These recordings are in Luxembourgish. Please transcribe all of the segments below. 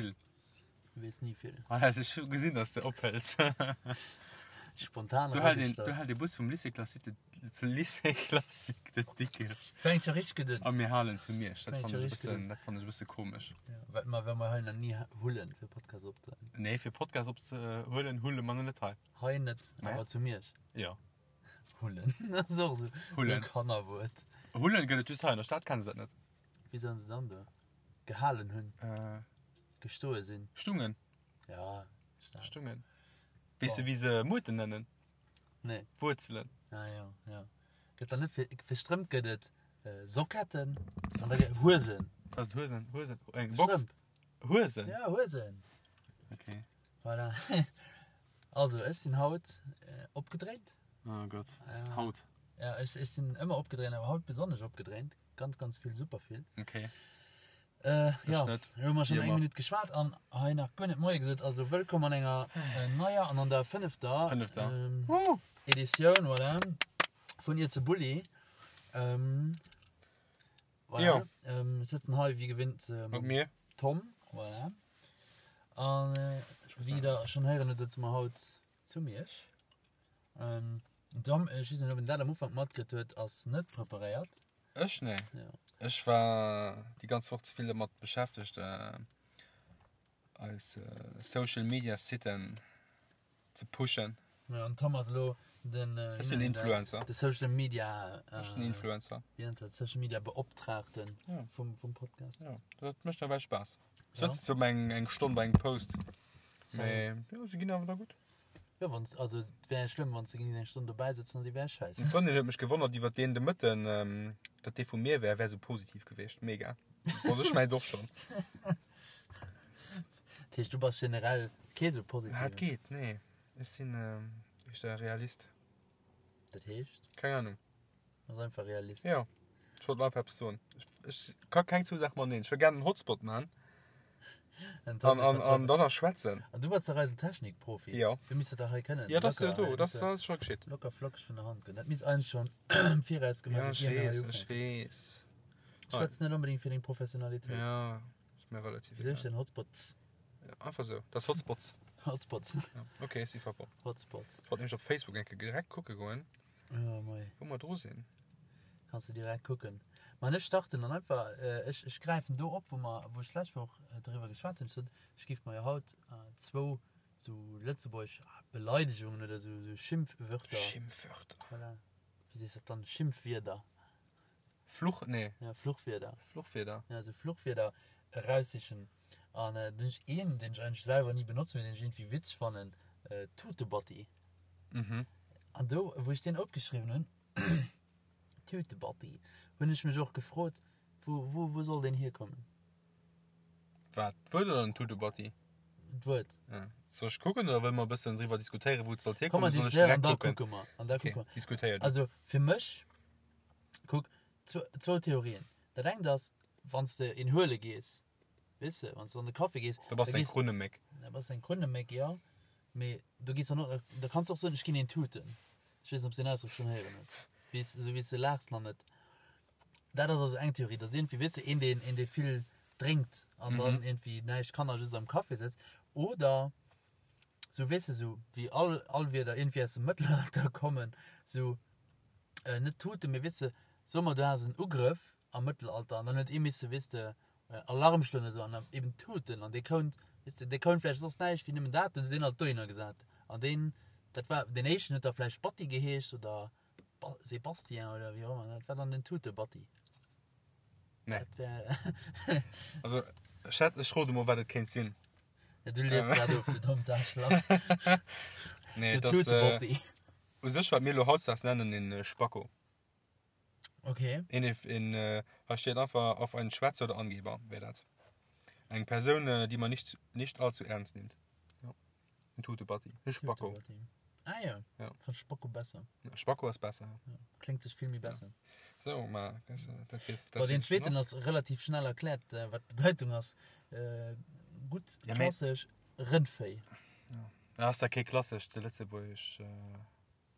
Vill. Du weess ni vill. Ah, also ech hu gesinn, dass de ophëls. Spontan Du hält een, eragestallt. du hält e Bus vum Lycée Classique de, Lycée Classique de Dikrech. Fänkt scho richteg gutt un. A mir halen zu Miersch. Dat Fänkt fannen scho ech e richteg bëssen, gutt un. dat fannen ech e bësse komesch. Ja, well mer, well mer hei nach ni hullen, fir Podcast opzehuelen. Nee, fir Podcast opzehuelen, hulle mer net hei. Hei net, Nee. awer zu Miersch. Jo. Hullen. Dat ass och esou, esou e Hullen. Kannerwuert. Hullen gëtt et just hei, an der Stad kenne se dat net. Wéi soen se dann do? Gehalen hunn. Äh. Gestoe sinn. Stungen. Ja, stark. Stungen. Weess de, wéi se Muerten nennen? Nee. Wuerzelen. Ah ja, ja. Gëtt dann net fir, fir Strëmp gëtt et äh, Socketten. An da gëtt Huesen. Was sind Huesen? Huesen. Eng Box. Strëmp. Huesen? Ja, Huesen. Okay. Voilà. Also, ech sinn haut äh, opgedréint. Oh Gott. Ja. Haut. Ja, ech, ech sinn ëmmer opgedréint, awer haut besonnesch opgedréint. Ganz, ganz vill, super vill. Okay. Äh, ja, net. hu mer schon Wéi eng ëmmer. Minutt geschwat an hei nach guer net Moie gesot. Also wëllkomm an enger äh, neier an an der fënnefter, Fënnefter. ähm, Uh. Editioun voilà, vun Iert ze Bulli. Ähm, voilà. Jo. Ähm, sëtzen hei wéi gewinnt äh, Mat mir. Tom. Voilà. An äh, wéi der schon héieren hutt, sëtze mer haut zu Miersch. Ähm, Tom, ech weess net, ob en dat am Ufank matkritt huet, ass net preparéiert. Ech? Nee. Ja. Ech war déi ganz Woch ze vill dermat beschäftegt, äh, eis äh, Social Media Siten ze pushen. Ja, an Tom ass elo den, äh, Ech sinn Influencer. De Social Media, äh, Ech sinn Influencer. Wéi nennt dat? Social Media Beoptraagten Ja. vum, vum Podcast. Ja, dat mécht nawell Spaass. Ja. Sëtzt so eng, eng Stonn bei engem Post. Mee, ja, se ginn awer da gutt. Jo, wann also et wär schlëmm, wann s de géings eng Stonn dobäi sëtzen an si wär schäiss. Eng Frëndin huet mech gewonnert iwwer deen de Mëtten, datt dee vu mir wär, wär sou positiv gewiescht. Mega. Also ech mengt och schonn. Dat heescht, du bass generell kee sou positiven? Ah, et geet, nee. Ech sinn éischter Realist. Dat heescht? Keng Ahnung. Ass einfach Realist. Jo, ech wollt einfach eppes soen. Ech, ech ka keng zwou Saache mateneen. Ech wëll gären en Hotspot man An, an, an, an dann nach schwätzen. An du bass dach eisen Technikprofi. Jo. Du misst dat dach hei kënnen. Jo, dat ass jo Locker, do, dat misst ass scho geschitt. Locker flockeg vun der Hand goen. Dat misst eigentlech schonn am Viraus gemaach Ja, sinn, ech ier mir hei weess, ech ufänken. weess. Schwätz net onbedéngt fir deng Professionalitéit. Ja, ist mir relativ Wéi soll ech egal. denn Hotspots? Ja, einfach sou. Dat ass Hotspots. Hotspots. Ja, okay, ech si verbonnen. Hotspots. Ech wollt nämlech op Facebook eng Kéier direkt kucke goen. Oh mei. Wou mer dru sinn. Kanns de direkt kucken. Ma ech starten dann einfach, ech, ech gräifen do op, wou mer, wou ech d'lescht Woch driwwer geschwat hunn. Ech sot, ech géif mer jo haut zwou sou lëtzebuergesch Beleidegungen oder sou, sou Schimpfwörter. Schimpfwörter. Voilà. Wéi sees de dat dann? Schimpfwierder. Fluch, nee. Ja, Fluchwierder. Fluchwierder. Ja, sou Fluchwierder eraussichen. An do hunn ech een, deen ech eigentlech selwer ni benotzen, mee deen ech iergendwéi witzeg fannen, Tutebatti. Mhm. An do, wou ech deen opgeschriwwen hunn, Tütebatti, hunn ech mech och gefrot, wou, wou, wou soll deen hierkommen? Wat, d'Wuert oder den Tutebatti? D'Wuert. Ja. Soll ech kucken oder wëlle mer e bëssen driwwer diskutéieren, wou et sollt Komm, mer hierkommen? Soll ech diskutéieren an direkt da kucken? kucke mer. An da Okay, kucke mer. diskutéier du. Also fir mech, kuck, zwou Theorien. Dat engt ass, wann s de een huele gees, weess de, wann s de an de Café gees, Da bass da de eng gees, Krunneméck. da bass de eng Krunneméck, jo. Mee do gees dann och, da kanns de och soen, ech ginn een tuten. Ech weess net, ob s de deen Ausdrock schonn héieren hues. Wéi s, esou wéi s de laachs nach net. Dat ass also eng Theorie, dass iergendwéi, weess de, een deen, een dee vill drénkt an dann iergendwéi näischt kann a just am Café sëtzt. Oder sou, weess de, sou wéi all, all Wierder iergendwéi aus dem Mëttelalter kommen, sou, net tuten, mee weess de, soe mer du has en Ugrëff am Mëttelalter an dann huet ee misse, weess de, Alarm schloen esou an eben tuten an dee kount, weess de, dee kount vläicht soss näischt wéi nëmmen dat, hunn se deen alt dohinner gesat an deen, dat war deen éischten huet da vläicht Batti geheescht oder Ba Sébastien oder wéi och ëmmer, dat war dann den Tutebatti. Nee. Dat wär. Also ech hätt, ech rode mol wat et kéint sinn. Ja, du liest grad of, du dommt Aarschlach. Nee, Den et ass Tutebatti. u sech wat mir elo hautdesdaags nennen en Spacko. Okay. Een, een, äh, hei steet einfach auf einen Schwätzer oder Angeber, wär dat. Eng Persoun, äh, die man nicht, nicht allzu ernst nimmt. Ja. En Tutebatti. E Spacko. Tutebatti. Ah ja. Ja. Von Spacko besser. Ja, Spacko ass besser. Ja. Klingt sech vill méi besser. Ja. So, ma, das, äh, dat weess, dat Bon, den weess ich zweeten noch. ass relativ schnell erkläert, äh, wat d'Bedeitung ass. Äh, gutt, Ja, mee- klassesch Rëndvéi. Ja. Ass dat kee klassescht lëtzebuergesch, äh,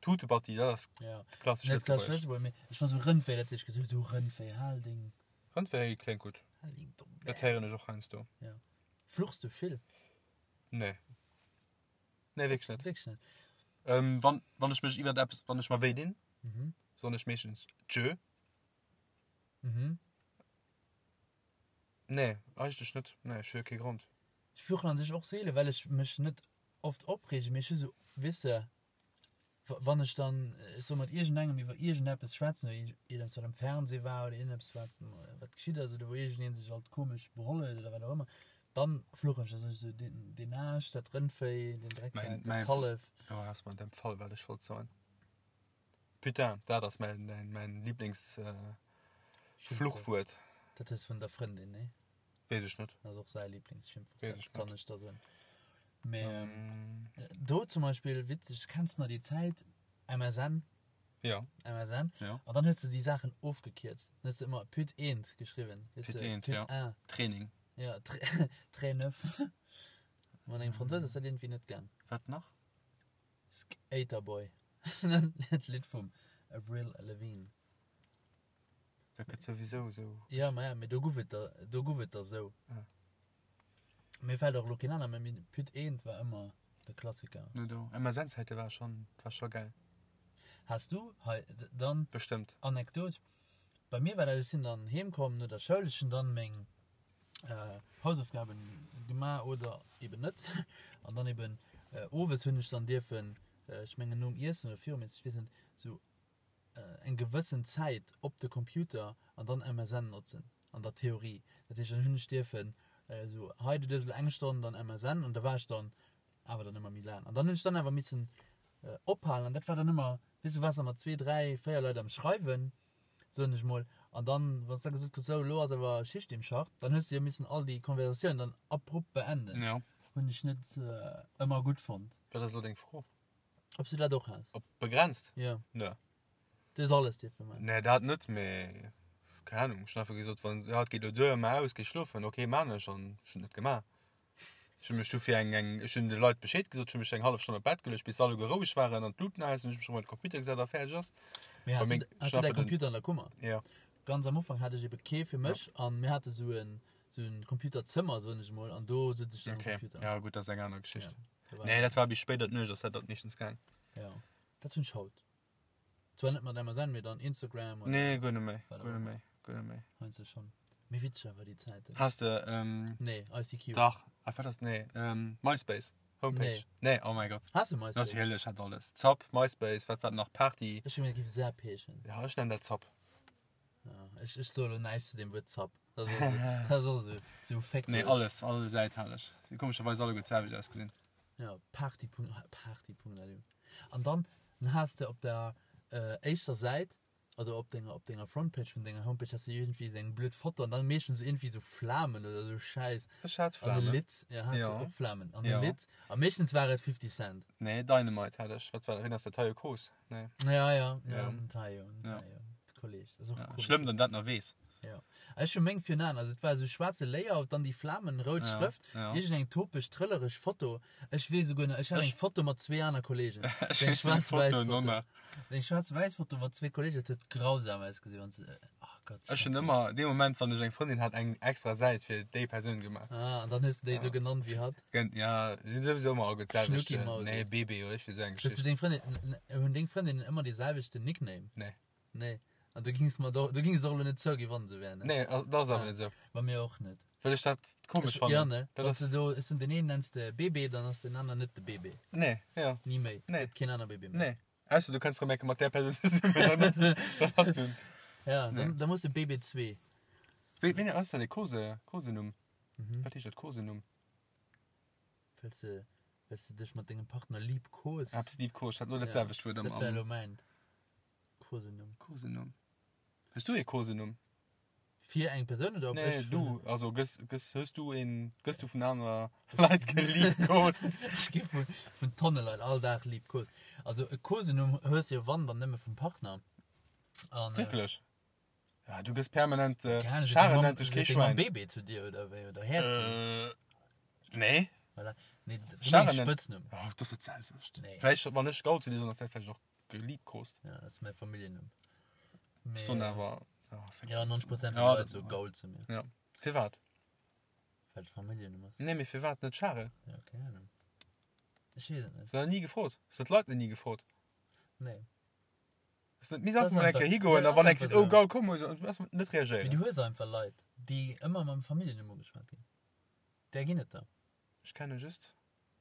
Tutebatti, dat ass Ja. klassesch Net klassesch Lëtzebuergesch. Lëtzebuerg, mee ech war sou Rëndvéi, dat ech gesot hu, Rëndvéi, hal deng, Rëndvéi kléngt gutt. hal deng domm Dat Bär. héieren ech och heiansdo. Ja. Fluchs du vill? Nee. Nee, wierklech net. Wierklech net? Ähm, wann, wann ech mech iwwert eppes, wann ech mer wéi dinn, Mhm. soen ech meeschtens Tschö. Mhm. Nee, eigentlech net. Nee, ech hu kee Grond. Ech fluchen an sech och seelen, well ech mech net oft opreegen, mee ech hu sou, weess de, wann ech dann, ech soe mat iergendengem iwwer iergendeppes schwätzen oder iergendeppes wat am Fernseh war oder iergendeppes wat wat geschitt ass oder wou iergendeen sech alt komesch beholl huet oder wat och ëmmer, dann fluchen ech, da soen ech esou, deen deen Aarsch, dat Rëndvéi, deen Drecksak, dat Kallef. Oh, ass mer an deem Fall wat ech wollt soen. Putain, dat ass mäin mäin mäin Lieblings Fluchwuert. Dat hues vun der Frëndin, nee? Weess ech net. Dat ass och säi Lieblingsschimpfwuert, Weess ech dat kann net. ech der soen. Mee do zum Beispill, witzeg, kenns de nach déi Zäit, MSN? Ja. MSN? Ja. An dann hues de déi Saachen ofgekierzt. Dann hues de ëmmer Put eent geschriwwen. Weess Put de, eent, Put ja. un. Training. Ja, Très neuf. Mat engem Fransous ass dat iergendwéi net gaang. Wat nach? Skater Boy. Dat Lidd vum Avril Lavigne. Dat gëtt souwisou esou. Ja, ma ja, mee do guff et der, do guff et der esou. Ah. Mir fält och elo keen aner, mee Püt eent war ëmmer de Klassiker. No do. MSN-Zäite war schon, war scho gäil. Has du hei dann. Bestëmmt. Anekdot, Bei mir war dat, ech sinn dann heem komm no der Schoul, ech hunn dann meng Hausaufgaben gemaach oder eben net an dann eben owes hunn ech dann dierfen, ech mengen nom Iessen oder virum Iessen, ech weess net, sou eng gewëssen Zäit op de Computer an dann MSN notzen, an der Theorie. Dat heescht, dann hunn ech dierfen esou, hei du duerfs elo eng Stonn dann MSN an da war ech dann awer dann ëmmer méi laang. An dann hunn ech dann awer missen ophalen an dat war dann ëmmer, weess du, waars da mat zwee, dräi, véier Leit am Schreiwen, soen ech mol, an dann, wann s da gesot kriss, sou elo ass awer Schicht im Schacht, dann hues du jo missen all déi Konversatioun dann abrupt beenden. Ja. Hunn ech net ëmmer gutt fonnt. Wat ass elo deng Fro? Ob s du dat och has? Op begrenzt? Jo. Nö. Du hues alles dierfe man? Nee, dat net, mee keng Ahnung. Ech hunn einfach gesot, wann, ja, et geet elo duer, maach aus, géi schlofen. Ok, maan ech an ech hunn et net gemaach. Ech hunn mech du fir eng, eng, ech hunn de Leit Bescheed gesot, ech hunn mech eng hallef Stonn op d'Bett geluecht, bis se alleguer roueg waren an d'Luuten aus, hunn ech mech erëm op de Computer gesat a fäerdeg ass. Mee has Bei du, meng has du däi Schlafen den- Computer an der Kummer? Ja. Ganz am Ufank hat ech ebe kee fir mech an mir hate sou en, sou en Computerzëmmer, soen ech emol, an do sot ech dann um Okay. Computer. Ja, gutt, dat ass eng aner Geschicht. Ja. Nee, dat war bis spéider d'Nuecht ass dat dat meeschtens gaang. Ja, dat hunn ech haut. Zwar net mat MSN, mee dann Instagram oder. Nee, guer net méi, Wat guer och net méi, guer net méi. Heiansdo schonn. Mee witzeg awer déi Zäiten. Has de, ähm. Nee, ICQ. Dach, ah, wat ass, nee, ähm, MySpace, Homepage. Nee. Nee, oh mäi Gott. Has de MySpace? Natierlech, hat alles. Zapp, MySpace, wat war nach, Party. Ech hunn gemengt, et géif Zapp heeschen. Ja, ech nennen dat Zapp. Ja, ech, ech soe lo näischt zu deem Wuert Zapp. Dat ass och sou, dat ass och sou, sou Féckwuert. Nee, alles, all Säit hat ech. Si komescherweis alleguer d'selwecht ausgesinn. Ja, Party. Party.lu. An dann, dann has de op der éischter Säit, also op denger, op denger Frontpage vun denger Homepage, has de iergendwéi esou eng blöd Foto an dann meeschtens esou iergendwéi esou Flamen oder esou Schäiss. Ech hat An e Flamen. Lidd, ja, has de Ja. och Flamen. An e Ja. Lidd. A meeschtens war et 50 Cent. Nee, Dynamite hat ech. Wat war dat? Wien ass dat? Taio Cruz? Nee. Ja, ja, ja, Ja. den Taio, den Ja. Taio. De Kolleg. Das ist och Ja. komisch. Schlëmm, dann dat nach weess. Ja. Ech hu meng virun also et war esou schwaarze Layout, dann déi Flamen, rout Ja, Schrëft, ja. iergendeng topeg, trëllereg Foto. Ech weess esouguer nach, ech hat Ech- eng Foto mat zwee aner Kollegen. Ech Eng weess déi schwaarz-wäiss Foto Foto. nach. Eng schwaarz-wäiss Foto mat zwee Kollegen, dat huet grausam ausgesinn, wann se, oh Gott. Ech hunn ëmmer, dee Moment, wann ech eng Frëndin hat, eng extra Säit fir déi Persoun gemaach. Ah, an dann hues de déi esou genannt wéi hatt. Gen, ja, sinn souwisou ëmmer alleguer d'selwecht. Schnucki Mausi. Nee, Bebe oder iergendwéi esou eng Hues du Geschicht. deng Frëndin, hunn deng Frëndinnen ëmmer dee selwechten Nickname? Nee. Nee. An du gings mer do, du gings och lo net zouginn, wann se wär, ne? Nee, dat ass awer Ah. net esou. Bei mir och net. Well ech dat komesch Ech, fannen. ja, ne? Dat Wann s ass, du so, ech soen, den een nenns de BB, dann ass den aner net de BB. nee, ja, Ni méi. Nee. Gëtt keen aner BB méi. nee. Ausser du kënns rëm eng Kéier mat där Persoun zesummen, dann ass, dann ass den. Ja, Nee. dann, dann muss de BB2. Wéi, wéi ass dat e Kose, Kosenumm? Mhm. Wat heescht dat, Kosenumm? Well s de, well s de dech mat dengem Partner liebkos. Eppes liebkost, hat lo dat Ja. selwecht Wuert am, Dat wär am lo mäint. Kosenumm. Kosenumm. Hues du ee Kosenumm? Fir eng Persoun oder ob Nee, ech du, vun. also gëss, gëss, hues du een, gëss du vun aner Leit geliebkost? Ech gi vun, vun Tonne Leit all Dag liebkost. Also e Kosenumm hues de jo wann dann nëmme vum Partner. An, äh, Wierklech? Ja, du gëss permanent, äh, Keine Ahnung, Scharen nennt dech kee sot deng Mamm Schwäin. Bébé zu dir oder wéi oder Häerzchen? Äh, nee. Voilà. Nee, du Scharen mengst nennt. Spëtznumm. Oh, dat ass dat selwecht. Nee. Vläicht, wann ech Gaul zu dir soen, ass dat vläicht och Geliebkost. Ja, dat ass mäi Familljennumm. Mee, Soen awer, ja, ja, 90 Prozent vun Ja, de Leit dat- soe Gaul zu mir. Ja. Firwat? Well et Familljennumm ass. Nee, mee firwat net Charel? Ja, keng Ahnung. Ech weess et net. Hues de nach ni gefrot? Hues de d'Leit nach ni gefrot? Nee. Ass net miss einfach mol eng Kéier higoen a wann eng seet, oh gaul, komm mol, einfach net Mee reagéieren. du hues einfach Leit, déi ëmmer mam Familljennumm ugeschwat ginn. Där ginn et der. Ech kenne just.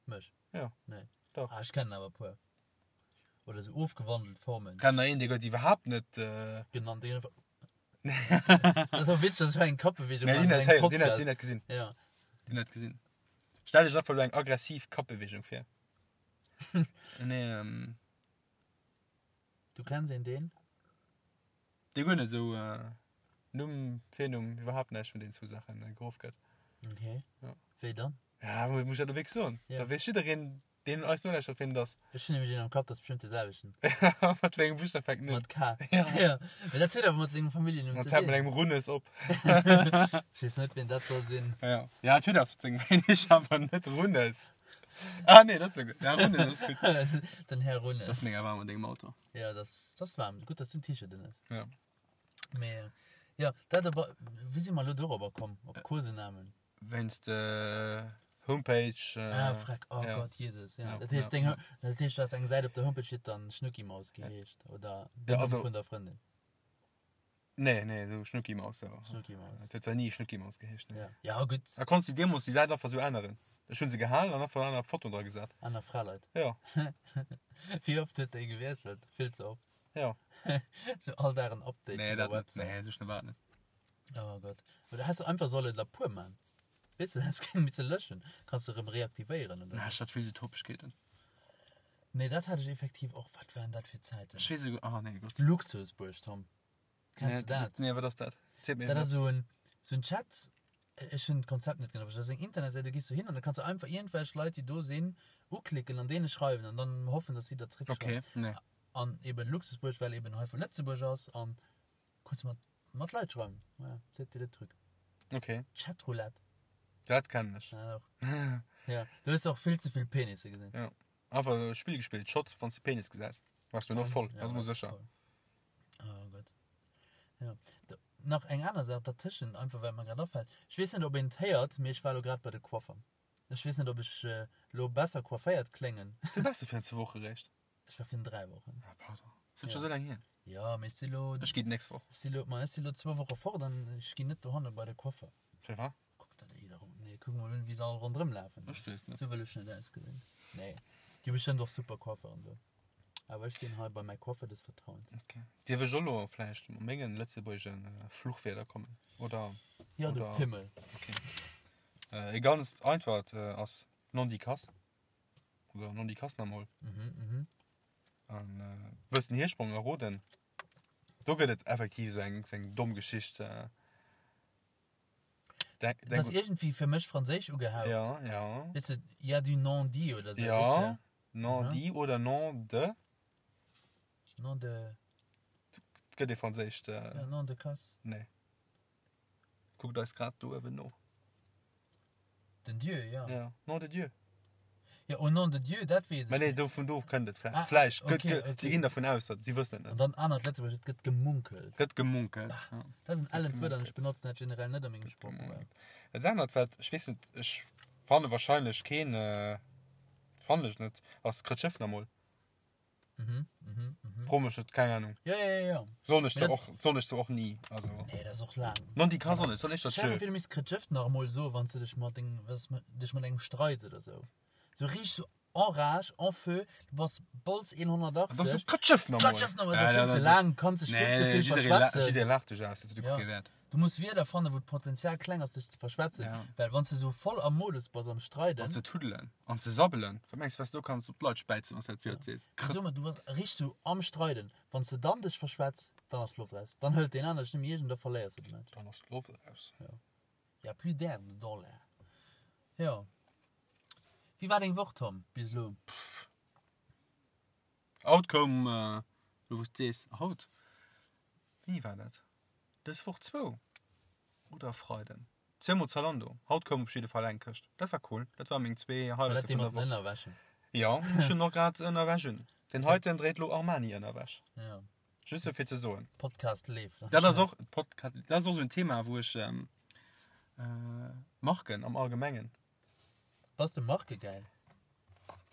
Mech? Jo. Nee. Dach. Ah, ech kennen awer e puer. Oder sou ofgewandelt Formen. Kennen der een, dee gëtt iwwerhaapt net. Genannt. Dee gëtt einfach. Dat ass och witzeg, dass ech hei eng Kappbeweegung Nee, maachen déi an net engem héieren, déi net, Podcast. déi net gesinn. Ja. Déi net gesinn. Stell dech einfach elo eng aggressiv Kappbeweegung vir. Nee, ähm. Du kenns een deen? Dee guer net esou Numm, Virnumm, iwwerhaapt näischt vun deenen zwou Saachen geruff gëtt. Okay. Ja. Wéi dann? Ja, muss ech dat elo wierklech soen? Ja. Da weess jiddereen, deen eis nolauschtert, wien et ass. Ech hunn nämlech een am Kapp, dat ass bestimmt dee selwechten. Mat wéi engem Buschtaf fänkt en un? Mat K. Ja. Ja. Mee dat huet awer mat sengem Familljennumm An ze et hält mat dinn. engem Runnes op. Ech weess net, wien dat soll sinn. Ja. Ja, et huet eppes mat sengem Wéi ech awer net Runnes. Ah nee, dat ass jo gutt. Ja, Runnes ass gutt. Den Här Dat ass Runnes. mega waarm an dengem Auto. Ja, dat ass waarm. Gutt, dass du en T-Shirt un hues. Ja. Mee jo, dat op, wéi si mer elo dorobber komm, op Kosenamen? Wéinst de Homepage. Ah, freck, oh ja. Gott, Jesus, ja. Ja, Dat heescht, ja. deng, dat heescht, du has eng Säit op der Homepage, déi huet dann Schnuckimaus geheescht, oder Ja, den Numm also- vun der Frëndin, Nee, nee, esou Schnuckimaus, ja. Schnuckimaus. Dat huet zwar ni Schnuckimaus geheescht, nee. Ja, ja gutt, A konns de deemools déi Säit einfach esou änneren? Ech hunn se gehalen an einfach aner Fotoen dra gesat. aner Fraleit. Ja, Wéi oft huet déi gewiesselt? Vill ze oft. ja. Sou all Dag en Update Nee, vun der dat net. Website. Nee, esou schnell war et net. Oh Gott. Oder häss de einfach solle der puer man. Weess de, häss keng misse löschen. Kanns de rem reaktivéieren oder Na, sou. ech hat vill sou Topegkeeten. Nee, dat hat ech effektiv och. Wat waren dat fir Zäiten? Ech weess esouguer, ah nee, Gott. Luxusbuerg, Tom. Kenns de dat? Nee, wat ass dat? Ziel mir Dat ass eppes. sou en, sou en Chat, ech hunn d'Konzept net genau verstanen. Dat ass eng Internetsäit, do gees du hin an da kanns du einfach iergendwelch Leit, déi do sinn, uklicken an deene schreiwen an dann hoffen, dass si der zréckschreiwen. Okay, nee. An eben Luxusbuerg, well eben hei vu Lëtzebuerg ass an kanns du mat, mat Leit schreiwen. Ja, c'était le truc. Okay. Chatroulette. Dat kennen ech. Ja, och. Ja, du hues och vill ze vill Penisse gesinn. Ja. Einfach e Spill gespillt, Shot, wann s de Penis gesäis, wars du noch voll, Ja, ass mol warst du sécher. voll. Oh Gott. Ja. Da, nach eng aner Saach dertëschent, einfach well mer grad afält. Ech weess net, ob een et héiert, mee ech war elo grad bei de Coiffer. Ech weess net, ob ech elo besser coifféiert kléngen. Du waars jo virun zwou Woche réischt. Ech war virun 3 Wochen. Ah, pardon. Ass dat scho sou laang hier? Ja, mee ech si lo. Ech gi d'nächst Woch. Ech si lo, ma ech si lo zwou Woche fort an ech ginn net dohanne bei de Coiffer. Firwat? Kuck der déi da ronn. Nee, kuck mol un, wéi se all ronderëm lafen. Ech weess net. Sou wëll ech net ausgesinn. Nee. Déi hu bestëmmt och super Coifferen do. Awer ech ginn hei bei mäi Coiffer des Vertrauens. Okay. Dierf ech och lo vläicht mat mengen lëtzebuergeschen Fluchwierder kommen? Oder? Ja, du Oder- Pimmel. Okay. Äh, e ganzt einfacht ass Nondikass. Oder Nondikass namol. Mhm, mhm. An äh, wëlls den Hirsprong erroden? Do gëtt et effektiv sou eng, sou eng domm Geschicht. Äh, denk, Dat denk, ass iergendwéi fir mech franséisch ugehaucht. ja, ja. Weess de, y a du non-dit oder sou, Ja. weess de? Non-dit oder non de. Non de. Et gëtt ee franséischt. Äh, Ja, non de casse. Nee. Kuckt eis grad do uewen no. Den Dieu, ja. Ja, Nom de Dieu. Ja, au nom de Dieu, dat weess ech. Mä nee, do, vun do kënnt et vläicht. Ah, Vläicht. okay, Gëtt, gëtt, okay. Si ginn dervun aus, datt si wëssen et An net. dann anert Lëtzebuergesch, et gëtt gemunkelt. Gëtt gemunkelt. Ja. Dat ass en ellent Wuert an ech benotzen dat generell net a mengem Sproochgebrauch. Dat anert, wat, ech weess net, ech fanne wahrscheinlech keen, fannen ech net, ass Krëtschëff namol. Mhm, mhm, mhm. Fro mech net, keng Ahnung. Ja, ja, ja, ja. Soen ech Mee zwar dat- och, soen ech zwar och ni, also. Nee, dat ass och laang. Non, déi ka soen, soen ech dat Stell dir schön. vir, du misst Krëtschëff nach emol soen, wann s du dech mat dengem, wann s du dech mat engem streits oder sou. Sou richteg sou en rage, en feu, du bass Bolz 180. Dat ass sou Krëtschëff nach emol. Krëtschëff nach emol, dat ass vill ze laang, kanns dech vill ze vill verschwätzen. Jidderee laacht dech aus, dat huet Ja. kee Wäert. Du muss Wierder fannen, wou d'Potenzial kleng ass, dech ze verschwätzen. Ja. Well wann s du sou voll am Modus bass, am Streiden. An ze tuddelen. An ze sabbelen. Wat mengs du, wat s du do kanns op d'Leit späizen, wann s du dat Wuert sees? Krr. Sou, du bass richteg sou am Streiden. Wann s du dann dech verschwätz, dann ass d'Loft raus. Dann hëlt deen aner dech net méi eescht an da verléiers de de Match. Dann ass d'Loft raus. Ja. Y a plus d'herbe dans l'air. Jo. Wéi war deng Woch, Tom, bis elo? Pff. Haut koum, elo wou s de sees, haut, wéini war dat? Dës Woch zwou oder e Freiden? Zweemol Zalando. Haut koum op jidde Fall eng Këscht. Dat war cool. Dat war meng zwee War dat Highlighte dee vun mat der den Woch. Ënnerwäschen? Jo, ech hunn och grad Ënnerwäsch un. Den heiten dréit lo Armani-Ënnerwäsch. Ja. Just sou fir ze soen. Podcast leeft. Dat ass och, Podca-, dat ass och sou en Thema, wou ech. Marken am Allgemengen. Bass de markegeil?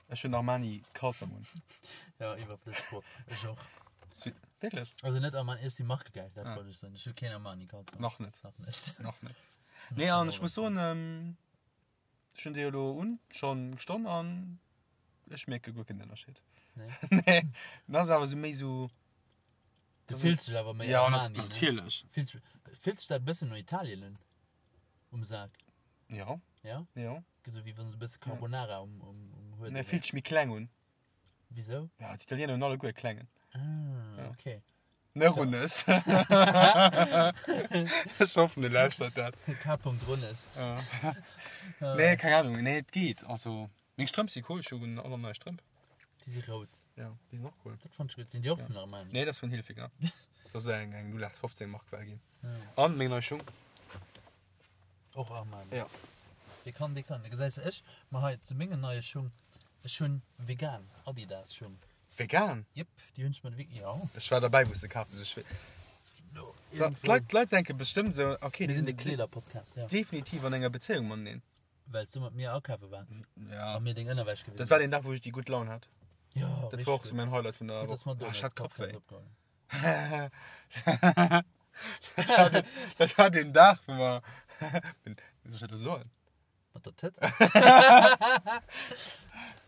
Ech hunn Armani Kalzong un. Ja, iwwerflësseg Fro. Ech och. Wierklech? Also net Armani, ech si markegeil, dat wollt ech soen. Ech hu keen Armani Kalzong. Nach net. Nach net. Nach net. Nee, an ech muss soen, ech hunn déi elo un, schonn eng Stonn an ech mierke guer keen Ënnerscheed. Nee. Nee, dat ass awer sou méi sou. Du fills dech awer méi Ja, Armani, ne? natierlech. Fills, fills dech dat e bëssen no Italien un? Um Sak? Ja. Ja? Ja. Esou wéi wann se e bësse Carbonara um, um, um Huet. Nee, fillt sech méi kleng un. Wisou? Ja, d'Italiener hunn alleguer e klengen. Ah, okay. Ne Runnes. Ech hoffen, de lauschtert dat. K. Runnes. Ja. Nee, keng Ahnung. Nee, et geet. Also, meng Strëmp si cool. Ech hunn och nach nei Strëmp. Déi si rout. Ja, déi sinn och cool. Dat fand ech gutt. Sinn déi och vun Armani? Nee, dat ass vun Hilfiger. Dat ass eng, eng 0815 Mark well ginn. An meng nei Schung. Och Armani. Ja. Dee kann, dee kann. Da gesäis de ech, ma hei zu mengen neie Schung. Ech hunn vegan Adidas Schung. Vegan? Jep, déi hunn ech mat Vegan, ja. Ech war derbäi wou s de kaaft hues. Ech So, d'Leit, d'Leit denke bestëmmt esou, okay, Mir déi sinn de sinn Kleederpodcast, ja. definitiv an enger Bezéiung mateneen. Well s du mat mir akafe war Ja. a mir deng Ënnerwäsch gewisen Dat war deen Dag, wou ech déi gutt Laun hat. Ja, Dat war och sou mäin Highlight vun der Gutt, dass mer Woch. do Ah, ech hat Podcast Kappwéi. opgeholl hunn. Dat war deen Dag, wou mer. Wéi soll ech dat elo soen? Mat der Tëtt?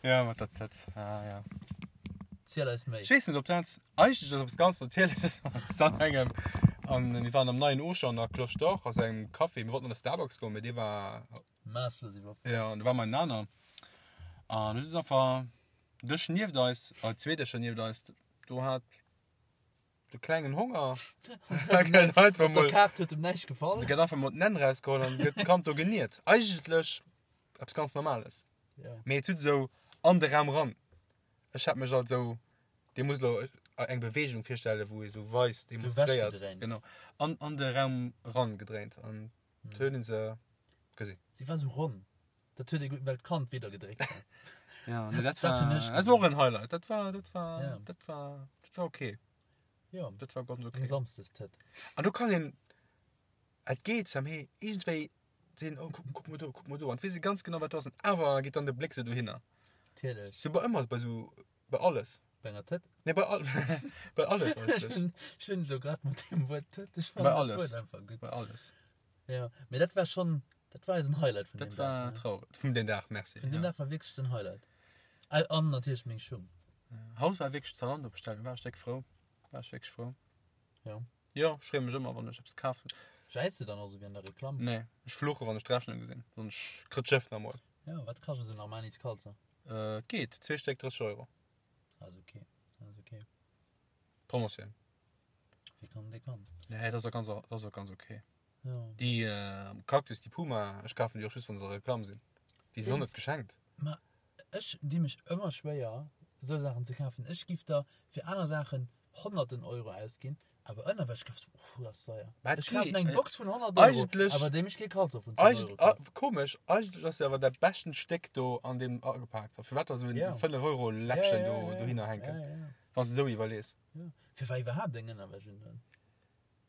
Ja, mat der Tëtt. Ah, ja. Ziel eis méi. Ech weess net, ob dat eigentlech ass eppes ganz Natierleches ass an engem. An mir waren am neien Auchan an der Cloche d'Or, also engem Café. Mir wollten an de Starbucks goen, mee dee war. Maasslos iwwerfëllt. Ja, an do war mer en aner. An du sitz einfach Dësch nieft eis, äh, zwee Dëscher nieft eis, do hat de klengen Honger. Da gëtt einfach Op der mol, Kaart huet em näischt gefall. da gëtt einfach mol d'Nenn rausgeholl an gëtt d'Kand do geniert. Eigentlech eppes ganz Normales. Ja. Mee et sut esou an de Raum ran. Ech hat mech alt esou, dee muss elo eng Beweegung virstellen, wou ee sou weist, demonstréiert. wechgedréint. Genau. An, an de Raum ran gedréint an huet een se gesinn. Si war sou ronn. Dat huet ee gutt, well d'Kand widder gedréckt war. Ja, nee, dat Dat war, hunn ech dat war och en Highlight. Dat war, dat war, Ja. dat war, dat war okay. Ja, Dat war ganz eng okay. Samsdestëtt. An do kann een, et geet zwar, mee iergendwéi sinn, oh, kuck, kuck mol do, kuck mol do. An weess ee ganz genau, wat do ass. An awer geet dann de Bléck sou dohinner. Natierlech. Sou bei ëmmer, bei sou, bei alles. Bei enger Tëtt? Nee, bei all, bei alles eigentlech. Ech hunn elo grad mat deem Wuert Tëtt, ech Bei fannen dat alles. Wuert einfach gutt. Bei alles. Ja, mee dat war schonn, dat war eisen Highlight vun Dat deem war Dag. ne? traurig. Vun deem Dag, merci. Vun deem ja. Dag war wierklech den Highlight. Äh, An natierlech meng Schung. Haut war wierklech Zalando bestellen, war ech déck frou. War ech wierklech frou. Ja. Jo, ech freeë mech ëmmer, wann ech eppes kafen. Jäiz du dann och sou wéi an der Reklamm? Nee, ech fluche wann ech d'Rechnung gesinn. Wann ech kritt d'Schëff nach emol. Ja, wat kascht esou en Armani Scalzer? Äh, et geet, zwee Stéck 30 Euro. Ass okay, ass okay. Promotioun. Wie kann, dee kann. Nee, dat ass och ganz, dat ass och ganz okay. Ja. Déi äh, Cactus, déi Puma, ech kafen déi och just, wann se a Reklamm sinn. Déi sinn och net geschenkt. Ma ech di mech ëmmer schwéier, esou Saachen ze kafen. Ech giff der fir aner Saachen honnerten Euro ausginn, awer Ënnerwäsch kafs du, uff, dat ass deier. Mä et Ech kafen geet. eng Box vun 100 Euro, Eigentlech- awer déi mech kee Caleçon vun 10 Euro Eigent, ah, kafen. komesch, eigentlech ass se awer dat beschten Stéck do an deem agepaakt. A firwat da sou en Ja. 5 Euro Läppchen do dohinner hänken, Ja, ja, ja. wann s de sou iwwerlees. ja. Firwat iwwerhaapt eng Ënnerwäsch undoen?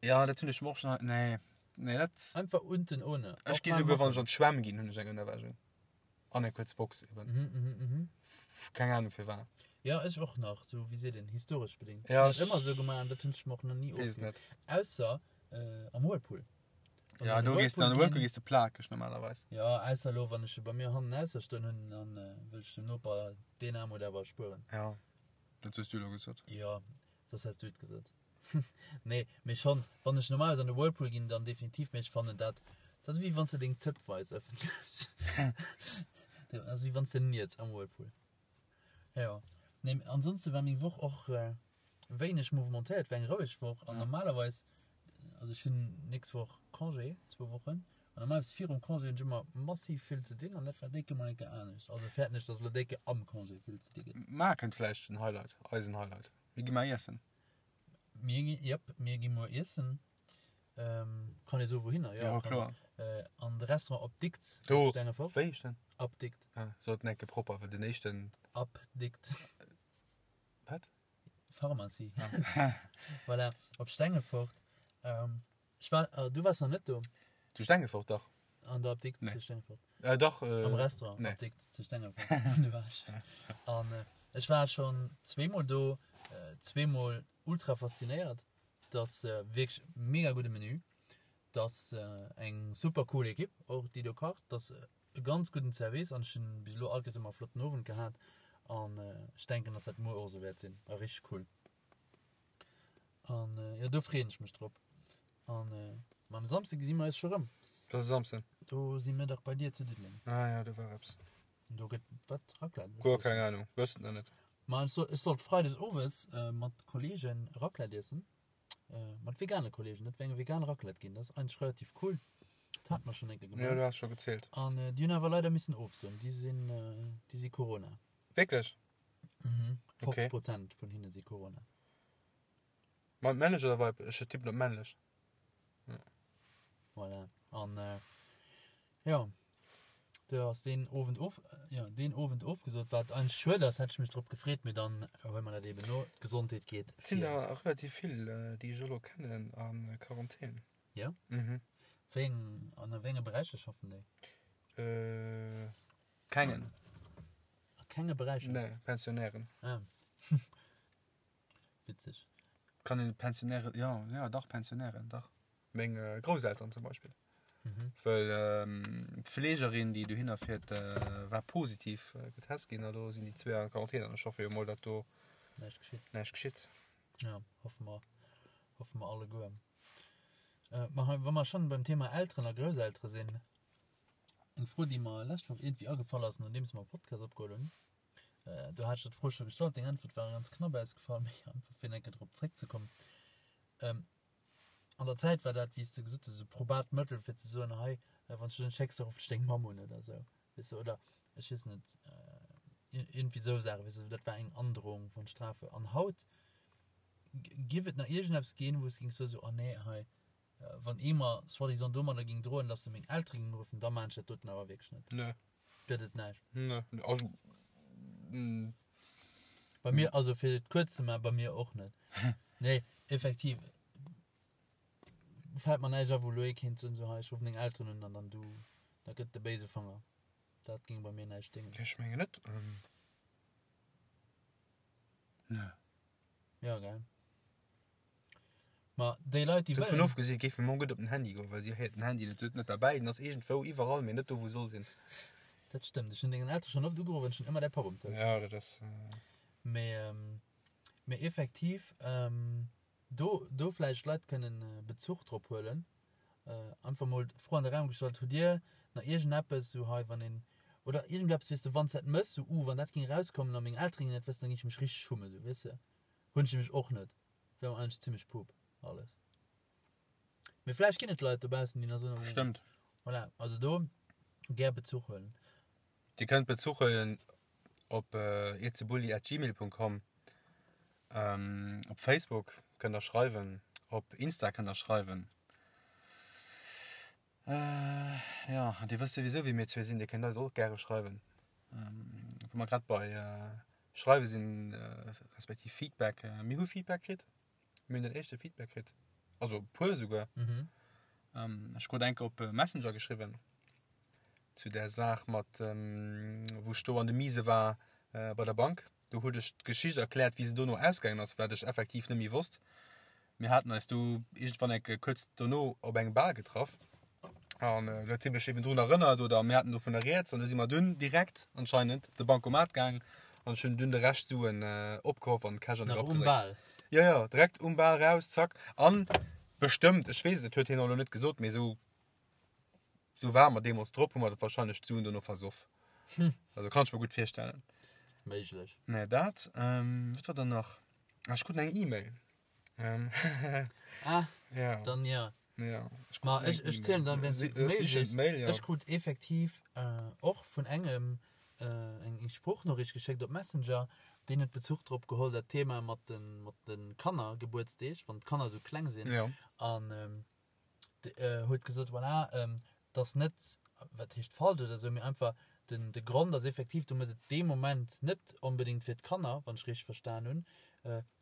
Ja, dat hunn ech mer och schon. Nee, nee, dat. Einfach unten ohne. Ech gi souguer, wann ech an d'Schwämm ginn, hunn ech eng Ënnerwäsch un. An eng kuerz Box eben. Mhm, mhm, mhm. Keng Ahnung firwat. Ja, ech och nach, sou wéi seet een, historesch bedingt. Ja, Ech hunn dat ëmmer sou gemaach an dat hunn ech mer och nach ni Weess ofgewinnt. net. Ausser äh, am Whirlpool. Wann Ja, ech an do de gees du an de Whirlpool Whirlpool ginn, gees de plakeg normalerweis. Ja, ausser elo, wann ech e bei mir hannen ausser stoen hunn, dann äh, wëll ech dem Noper deen Aarmut awer erspueren. Ja, dat hues du elo gesot. Ja, soss häss du et gesot. Nee, mee schon, wann ech normalerweis an de Whirlpool ginn, dann definitiv, mee ech fannen dat, dat ass wéi wann s de deng Tëtt weis ëffentlech. Dat ass wéi wann s de niets am Whirlpool. Jo. Nee, ansonste war meng Woch och wéineg mouvementéiert, war eng roueg Woch an normalerweis, also ech hunn nächst Woch Congé, zwou Wochen, an normalerweis virum Congé hunn ech ëmmer massiv vill ze dinn an dat war décke mol eng Kéier anescht. Also fäerten ech, dass elo décke am Congé vill ze di gëtt. Mar kënnt vläicht den Highlight, eisen Highlight. Mir gi mar iessen. Mir gi, jep, mir gi muer iessen. Ähm, kann ee soe wouhinner? Ja, kann kloer. Äh, an de Restaurant Apdikt Do, op Stengefort. wéi heescht den? Apdikt. Ah, sot en enke propper, well den éischten. Apdikt. Wat? Pharmacie. Ah. Voilà, op Stengefort. Ähm, ech war, äh, du waars nach net do. Zu Stengefort, dach. An der Apdikt zu Stengefort? Äh, dach. Am Restaurant nee. Apdikt zu Stengefort. Do war ech. An ech war schonn zweemol do, zweemol ultra faszinéiert. Dass wierklech mega gudde Menü. Dass eng super cool Ekipp och déi do kacht. Dass e ganz gudden Service an ech hunn bis elo all Kéiers ëmmer e flotten Owend gehat an ech denken, dass dat muer och esou wäert sinn. War richteg cool. An jo, do freeën ech mech drop. An ma am Samsde gesi mer eis scho rëm. Dat ass e Samsden. Do si mir dach bei dir zu Diddeleng. Ah ja, do war eppes. An do gëtt wat? Raclette? Guer keng Ahnung, wëss et nach net. Ma ech soll, ech sollt freides owes mat Kollegen Raclette iessen. Mat vegane Kollegen. Dat wäert eng vegan Raclette ginn. Dat ass eigentlech relativ cool. Dat hate mer schonn eng Kéier gemaach. Jo, du has scho gezielt. An déi hunn awer leider missen ofsoen. Déi sinn, déi si Corona. Wierklech? Mhm. 50 Prozent vun hinne si Corona. Mat männlech oder weiblech? Ech tippen op männlech. Ja. Voilà. An äh, ja, do ass deen Owend of, ja, deen Owend ofgesot, wat eigentlech schued ass, hätt ech mech drop gefreet, mee dann huele mer dat eben no. D'Gesondheet geet Et sinn der relativ vill, déi ech elo kennen, a Quarantän. Ja? Mhm. Wéi eng, an a wéi enge Beräicher schaffen déi? Äh, kengen. A kenge Beräicher? Nee, Pensionären. Ah. Witzeg. Kann een Pensionären, jo, jo, dach, Pensionären, dach. Meng Grousselteren zum Beispill. Mhm. Well d'Fleegerin, déi dohinner fiert, war positiv getest ginn a lo sinn déi zwee an Quarantän an ech hoffe jo mol, datt do Näischt geschitt. näischt geschitt. Ja, hoffe mer, hoffe mer alleguer. Ma hei, wa mer schonn beim Thema Elteren a Grousseltere sinn, eng Fro, déi mer lescht Woch iergendwéi agefall ass, nodeems mer e Podcast opgeholl hunn. Do hat ech der d'Fro scho gestallt, deng Äntwert war ganz knapp ausgefall, mee einfach fir eng Kéier drop zréckzekommen. An der Zäit war dat, wéi s de gesot hues, e probat Mëttel fir ze soen, hei, wann s du dech net schécks, da rufft ech deng Mamm un oder esou, weess de, oder ech weess net, iergendwéi esou Saachen, weess de, dat war eng Androhung von Strafe. An haut giff et nach iergendeppes ginn, wou s de géings soen, esou, oh nee, hei, Wann ee mer soi-disant domadder ging droen, dass se meng Eltere ging ruffen, da maan ech dat doten awer wierklech net. Nee. Gëtt et näischt. Nee, also. Bei mir, also fir et kuerz ze maachen, bei mir och net. Nee, effektiv fält mer näischt a wou elo ee kéint soen, sou hei, ech ruffen deng Elteren un an dann du, da gëtt de béise Fanger. Dat ging bei mir näischt déngen. Ech mengen net. Nee. Jo, gell. Ma déi Leit, déi Dovun wëllen. ofgesi géif meng Mamm gutt op den Handy goen, well si héiert den Handy net. Si huet en net derbäi, den ass iergendwou iwwerall, mee net do wou e soll sinn. Dat stëmmt. Ech hunn dengen Eltere schonn oft ugeruff an ech hunn ëmmer däi Papp um Telefon. Ja, dat ass. Mee, mee effektiv, do, do vläicht Leit kënnen Bezuch drop huelen. Einfach mol d'Fro an de Raum gestallt, Hutt Dir nach iergendeppes, sou hei wann een, oder iergendeppes, weess de, wann s dat mëss, sou, uh, wann dat géing erauskommen a meng Eltere géingen dat wëssen, da géing ech mech richteg schummen, sou, weess de? Hunn ech nämlech och net. Wär mer eigentlech zimmlech pup alles. Mee vläicht ginn et Leit dobaussen, déi nach soen, oh, Stëmmt. Voilà, also do gär Bezuch huelen. Dir kënnt Bezuch huelen op irzebulli@gmail.com, op Facebook kënnt der schreiwen, op Insta kënnt der schreiwen. Jo, an dir wësst souwisou wie mir zwee sinn, dir kënnt eis och gäre schreiwen. Wou mer grad bei schreiwe sinn, respektiv Feedback, mir hu Feedback kritt, mir hunn den éischte Feedback kritt, also e puer esouguer. Ech krut enke op Messenger geschriwwen zu där Saach mat wou ech do an de Mise war bei der Bank. Do huet ech d'Geschicht erkläert, wéi se dono ausgaangen ass, wat ech effektiv net méi wosst. Mir haten eis du iergendwann eng Kéier kuerz dono op engem Bal getraff an do huet hie mech eben drun erënnert oder mir haten dovunner rieds an du si mer dunn direkt anscheinend op de Bancomat gaang an ech hunn dunn de Rescht Suen opgehoff an Cash an de Nach Grapp um gedréckt. Bal? Jo, jo, direkt um Bal raus, zack. An bestëmmt, ech weess et, et huet hien och elo net gesot, mee esou Sou ware mer deemools drop, hu mer dat wahrscheinlech d'Suen dono versoff. Also kann ech mer gutt virstellen. Méiglech. Mä dat, ähm, wat war dann nach? Ah, ech krut eng E-Mail. Ähm, Ah, ja. dann ja. Ja. Ech krut Ma eng ech, ech zielen dann, Si- wéinst du äh, d'Mail sichen liest. d'Mail, ja. Ech krut effektiv äh, och vun engem äh, eng, eng Sproochnoriicht geschéckt op Messenger, deen huet Bezuch drop geholl, dat Thema mat den, mat den Kannergebuertsdeeg, wann d'Kanner esou kleng sinn. Ja. An ähm, huet gesot, voilà, dass net, wat heescht falsch oder esou, mee einfach den, de Grond ass effektiv, du mëss et dee Moment net onbedéngt fir d'Kanner, wann ech richteg verstan hunn,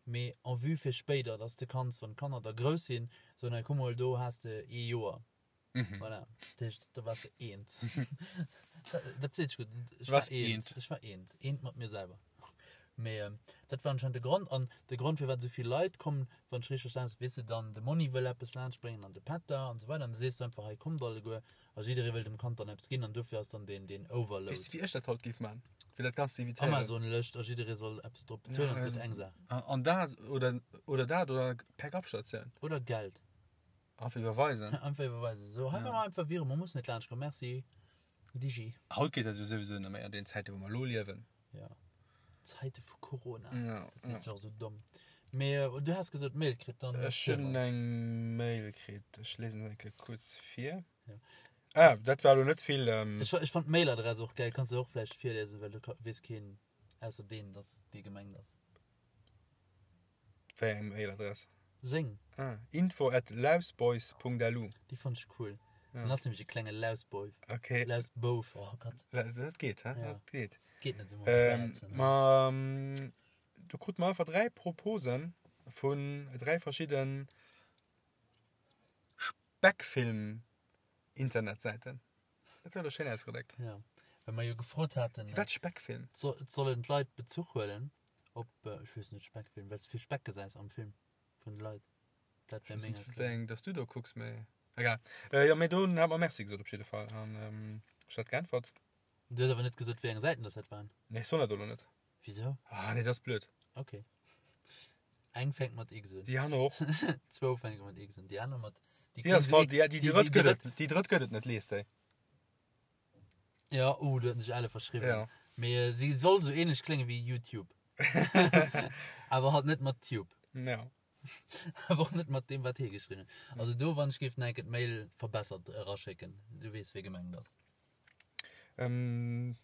mee en vue fir spéider, dass de kanns, wann d'Kanner da grouss sinn, soen, hei kuck mol, do has de ee Joer. Mhm. Voilà. Dat heescht, do waars de eent. Dat seet sech gutt. Ech Du waars war eent. eent. Ech war eent. Eent mat mir selwer. Mee ähm, dat war anscheinend de Grond. An de Grond, firwat esou vill Leit kommen, wann ech richteg verstan, weess de, dann de Monni wëll eppes laanschtbréngen an de Pätter an esou weider. An da sees du einfach, hei kommt alleguer. A jidderee wëll dem Kand dann eppes ginn an dofir ass dann deen, deen Overload. Weess de, wéi ech dat haut géif man? Fir dat Ganzt ze evitéieren. Amazon-Lëscht a jidderee soll eppes drop bezuelen an et gëtt eng Saach. An dat oder, oder dat oder Pick-up-Statioun. Oder Geld. Einfach iwwerweisen. Einfach iwwerweisen. So, hei ja. mal einfach Virement, man muss net laanscht kommen. Merci. Digi. Haut geet dat jo souwisou net méi an den Zäiten, wou mer elo liewen. Ja. Zäite vu Corona. Ja. Dat seet sech och sou domm. Mee äh, du has gesot Mail kritt, dann. Ech hunn eng Mail kritt. Ech lesen se eng Kéier kuerz vir. Ja. Ah, dat war elo net vill. Ähm... Ech, ech fand d'Mailadress och geil. Kanns du och vläicht virlesen, well du weess keen ausser deen, dass dee gemengt ass. Wéi eng Mailadress? Seng. Ah, info at lausboys.lu. Déi fand ech cool. Ja. Dann ass nämlech e klenge Lausboy. Okay. Lausbouf, oh Gott. Dat geet, hä? Ja. Dat geet. Geet net esou ähm, Ma ähm, do krut mer einfach dräi Proposen vun dräi verschidden Speckfilm-Internetsäiten. Dat huet elo schéin ausgedréckt. Ja, well mer jo gefrot haten. Firwat Speckfilm? So, sollen d'Leit Bezuch huelen op, ech weess net, Speckfilm, well s de vill Speck gesäis am Film vun de Leit. Dat wär meng Erklärung. Wéi eng dass du do kucks, mee egal. Jo, mee do hat mer Merci gesot op jidde Fall an ech hat geäntwert. Du hues awer net gesot, wéi eng Säiten dass dat waren. Nee, ech soll dat elo net. Wisou? Ah nee, dat ass blöd. Okay. Eng fänkt mat X un. Déi aner och. Zwou fänke mat X un. Déi aner mat. Déi ass falsch. Déi, déi, déi drëtt gëtt et. Déi drëtt gëtt et net, lies déi. Ja, uh, do huet sech alle verschriwwen. Ja. Mee äh, si soll sou ähnlech klénge wéi YouTube. Awer halt net mat Tube. Ja. Awer och net mat deem, wat hie geschriwwen huet. Also do, wann ech géif nach eng Kéier d'Mail verbessert eraschécken. Du weess, wee gemengt ass. Ähm,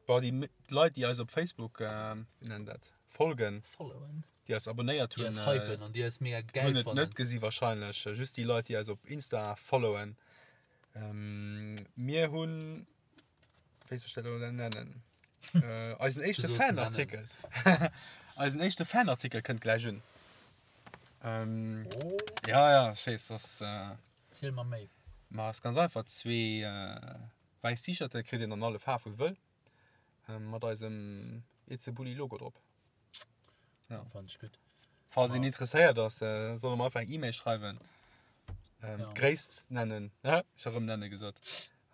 bon, déi Leit, déi eis op Facebook, äh, wéi nennen dat, folgen, Followen. déi eis abonnéiert Déi hunn, eis hypen an déi eis mega geil hunn et fannen. net gesi wahrscheinlech. Just déi Leit, déi eis op Insta followen. Ähm, mir hunn, wéi soll ech dat elo nennen? Äh, eisen éischte Du sollst en Fanartikel. Eisen éischte Fanartikel kënnt gläich un. Ähm, Oh. ja, ja, ech weess, das, äh, Ziel mer méi. Ma ass ganz einfach, zwee wäiss T-Shirte kritt een an alle Faarf wou wëll, mat eisem It's a Bulli Logo drop. Ja. Fand ech gutt. Falls een interesséiert ass, soll e mer einfach eng E-Mail schreiwen, d'Gréisst nennen, ech hu rëm nenne gesot,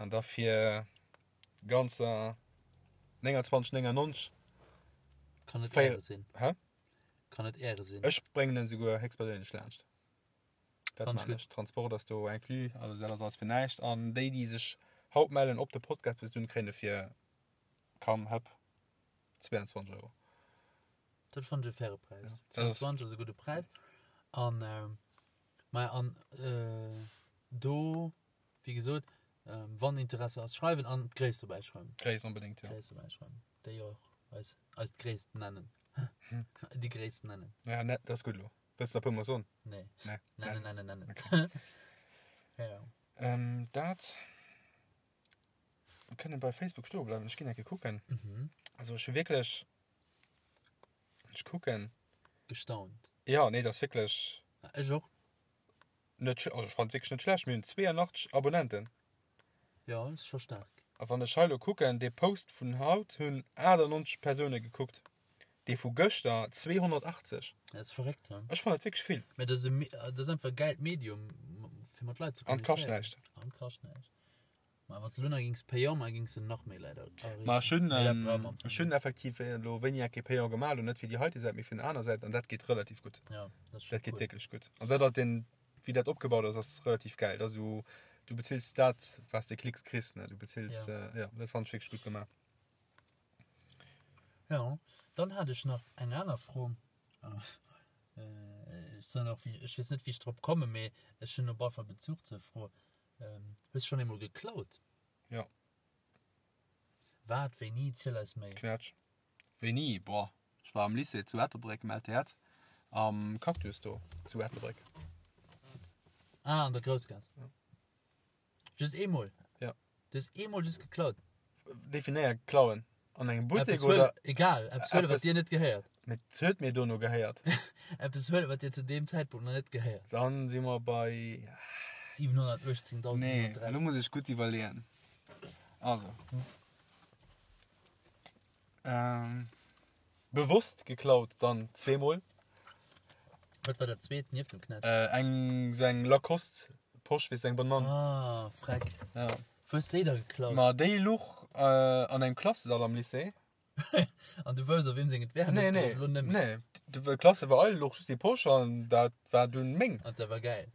an da fir ganzer 29,99. Kann et Äre sinn. Hä? Kann et Äre sinn. Ech bréngen en souguer héchstperséinlech laanscht. Dat Fand ech man ech. Transport ass do inclus, also dat ass alles fir näischt. An déi, déi sech haut mellen op de Podcast bis dunn, kréien e fir kaum hëpp 22 Euro. Dat fand ech e faire Präis. Ja, dat ass- 22 ass e gudde Präis. An äh, maja, an äh, do, wéi gesot, ähm, wann Interesse ass, schreiwen an d'Gréisst dobäi schreiwen. Gréisst onbedéngt, ja. D'Gréisst dobäi schreiwen. Déi och eis, eis d'Gréisst nennen. Déi Gréisst nennen. Ja, ne, dat ass gutt elo. Wëlls de nach e puer mol soen? Nee. Nee. Nennen, nennen, nennen. Okay. Ja. Ähm, dat. Mir kënnen bei Facebook stoe bleiwen. Ech ginn eng Kéier kucken. Mhm. Also ech hu wierklech. Ech kucken. Gestaunt. Ja, nee, dat ass wierklech Ech och. net, also ech fand wierklech net schlecht. Mir hunn 82 Abonnenten. Ja, ass scho staark. A wann ech hei elo kucken, dee Post vun haut hunn 98 Persoune gekuckt. Dee vu gëschter 280. Dat ass verréckt, ne? Ech fannen dat wierklech vill. Mä dat ass e, dat ass einfach e gäilt Medium, fir mat Leit ze An kascht kommunizéieren. näischt. An kascht näischt. Mä wann s de elo nach géings payant maachen, géings de nach méi Leit erreechen. Ma ech hunn, Mee dat brauche mer am Fong ech hunn net. effektiv elo wéini eng Kéier payant gemaach, elo net fir déi heite Säit, mee fir eng aner Säit, an dat geet relativ gutt. Ja, dat ass scho Dat geet cool. wierklech gutt. An dat ass den, wéi dat opgebaut ass, ass relativ gäil. Dat ass esou, du bezills dat, wat s de Klicks kriss, ne? Du bezills, Ja. ja, dat fannen ech wierklech gutt gemaach. Ja, dann hat ech nach eng aner Fro. Ech soen och, ech weess net, wéi ech drop kommen, mee ech hunn op alle Fall Bezuch zur Fro. Hues du schonn eemol geklaut? Jo. Wat? Wéini? Ziel eis méi. Knätsch. Wéini? Boah, ech war am Lycée zu Ettelbréck, am LTEtt, am Cactus do zu Ettelbréck. Ah, an der Groussgaass. Ja. Just eemol? Ja. Du hues eemol just geklaut? Definéier klauen. An engem Buttek Eppes huelen, oder? egal, eppes huelen, wat Eppes- dir net gehéiert. Mee et huet mir dono gehéiert. Eppes huelen, wat dir zu deem Zäitpunkt nach net gehéiert. Dann si mer bei. 718.913. Nee, elo muss ech gutt iwwerleeën. Also. Ähm, bewosst geklaut dann zweemol. Wat war dat zweet nieft dem Knätsch? Äh, eng sou eng Lacoste Posch, weess eng Banann. Ah, freck. Ja. Wou hues de déi da geklaut? Ma déi luch äh, an engem Klassesall am Lycée. An du wousst, op weem seng et wär? Nee, nee, Lo nëmmen. nee. De Klasse war eil luch just déi Posch an dat war dunn meng. An se war geil.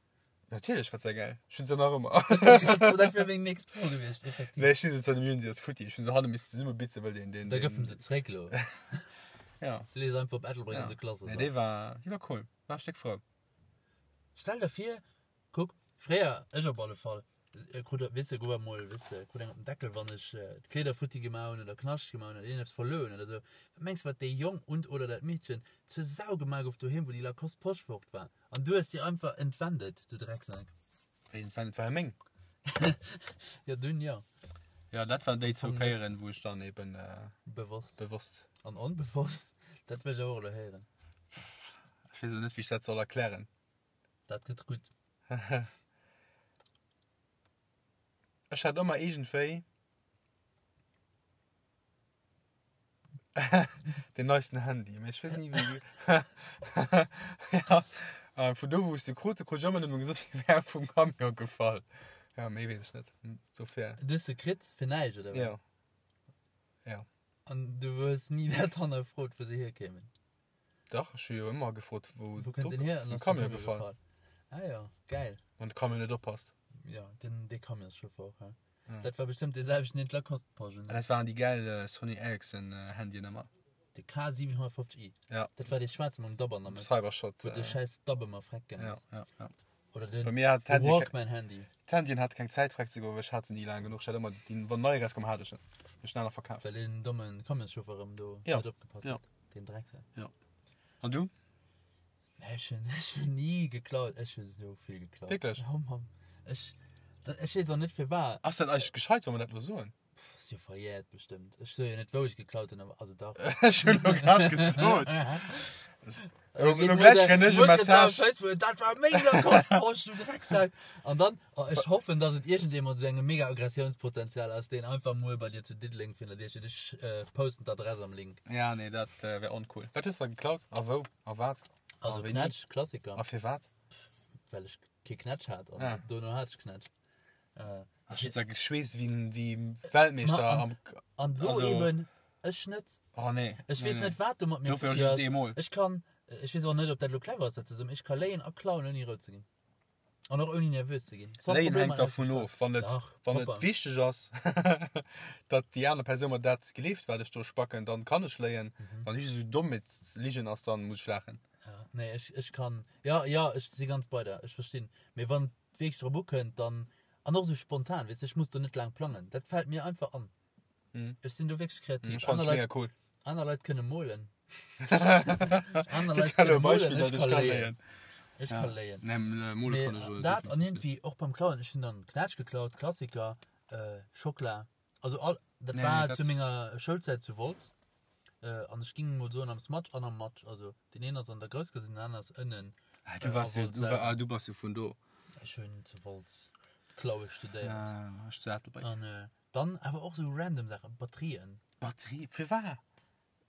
Natierlech war se geil. Ech hunn se nach ëmmer. Dat wär meng nächst Fro gewiescht, effektiv. Nee, ech hunn se zwar nëmme, si ass futti. Ech hunn se hanne missen zesummebitzen, well deen, deen, Da gëff em se zréck lo. Ja. Lee se einfach op Ettelbréck Ja. an de Klassesall. Nee, déi war, déi war cool. War e Stéck frou. Stell der vir, kuck, fréier, ech op alle Fall, krut, weess de, gouf emol, weess de, krut eng op den Deckel, wann ech d'Kleeder futti gemaach hunn oder Knascht gemaach hunn oder iergendeppes verluer hunn oder esou. Wat mengs de, wat dee Jong und oder dat Meedchen zur Sau gemaach gouf doheem, wou déi Lacoste Posch fort war? An du hues déi einfach entwendet, du Drecksack. Wéi entwendet? War jo meng. Jo, dunn jo. Jo, dat waren déi zwou Kéieren, wou ech dann eben Bewosst. bewosst. An onbewosst, dat wëll ech awer och elo héieren. Ech weess elo net, wéi ech dat soll erklären. Dat gëtt gutt. Ech hat ëmmer iergendwéi den neisten Handy, mee ech weess ni wéi. Ja, a vun do wou ech se krut, krut ech ëmmer nëmme gesot, déi wär vum Camion gefall. Ja, méi weess ech net. Dofir. Du hues se kritt fir näischt, oder wat? Ja. Ja. An du hues ni dat hannerfrot, wou se hierkéimen? Dach, ech hu jo ëmmer gefrot, wou Wou kënnt den hier? An vum ass vum Camion gefall. Ah jo, geil. Wann de Camion net oppasst. Jo, den dee Camionschauffer, hä? Ja. Dat war bestëmmt dee selwechten, deen d'Lacoste-Poschen. An dat waren déi gäil Sony Ericsson Handyen ëmmer. De K750i. Ja. Dat war dee schwaarze mam Dabb an der Mëtt. Cybershot. Wou de schäiss Dabb ëmmer freck gaang Ja, ass. ja, ja. Oder den Bei mir hat de d'Handye ke Walkman-Handy. d'Handyen hat keng Zäit freck ze goen, well ech hat se ni laang genuch. Ech hat ëmmer déi, wann nei erauskoum, hat ech en. Ech schneller verkaaft. Well deen domme Camionschauffer erëm do Ja. net opgepasst Ja. huet. Den Drecksack. Ja. An du? Nee, ech hunn, ech hunn ni geklaut. Ech hu sou vill geklaut. Wierklech? Ja, Mann. Ech, dat, ech weess och net firwat. Ass dat eigentlech gescheit, wa mer dat elo soen? Pff, ass jo verjährt bestëmmt. Ech soe jo net, wou ech geklaut hunn, awer, also dach. Ech hunn elo grad gesot. Elo gläich kréien ech e Message. Facebook, dat war meng Lacoste-Posch, du Drecksack. An dann, oh, ech hoffen, dass et iergendee mat esou engem mega Aggressiounspotenzial ass, deen einfach muer bei dir zu Diddeleng virun der Dier steet. Ech posten d'Adress am Link. Ja, nee, dat wär oncool. Wat hues de da geklaut? A wou? A wat? A Also wéini? Knätsch, Klassiker. A firwat? Well ech kee Knätsch hat an Ah. dono hat ech Knätsch. Äh, Ech hunn se geschweesst wéi wéi Weltmeeschter Ma an- am. an do Also- eben, ech net. Oh nee. Ech nee, weess nee. net, wat do mat mir Dofir futti just ass. eemol. Ech kann, ech weess och net, ob dat elo clever ass, dat ze soen, ech ka léien a klauen, ouni rout ze ginn. An och ouni nervös ze ginn. Sans Léien Problem hänkt an dervun Ausgestalt. of. Wann et, Dach, wann et propper. wichteg ass, datt déi aner Persoun mer dat gleeft, wat ech do spacken, dann kann ech léien. Mhm. Wann ech esou domm mit Ligen ass, dann muss ech laachen. Ja, nee, ech, ech kann, ja, ja, ech si ganz bei der, ech verstinn. Mee wann et wierklech drop ukënnt, dann, an och esou spontan, weess de, ech muss do net laang plangen. Dat fält mir einfach an. Mhm. Ech sinn do wierklech kreativ. Ech fannen Aner et Leit, mega cool. aner Leit kënne molen. Aner Leit Dat war elo kënne e molen, Beispill, ech datt ech ka ka léien. léien. Ech Ja. ka léien. Nee, m- mole Mee kann ech elo dat an definitiv net. iergendwéi och beim Klauen, ech hunn dann Knätsch geklaut, Klassiker, äh, Schockela. Also all, dat Nee, war dat- zu menger Schoulzäit zu Wolz. Äh, an ech ging mol soen am Smatsch an am Matsch. Also den een ass an der Groussgaass, den aneren ass ënnen. Ah, du wars jo, a Wolz du, war, selwer. ah, du bass jo vun do. Ech hunn zu Wolz d'Klaue studéiert. Ah, ech zu Ettelbréck. An äh, dann awer och sou random Saachen, Batterien. Batterie, firwat?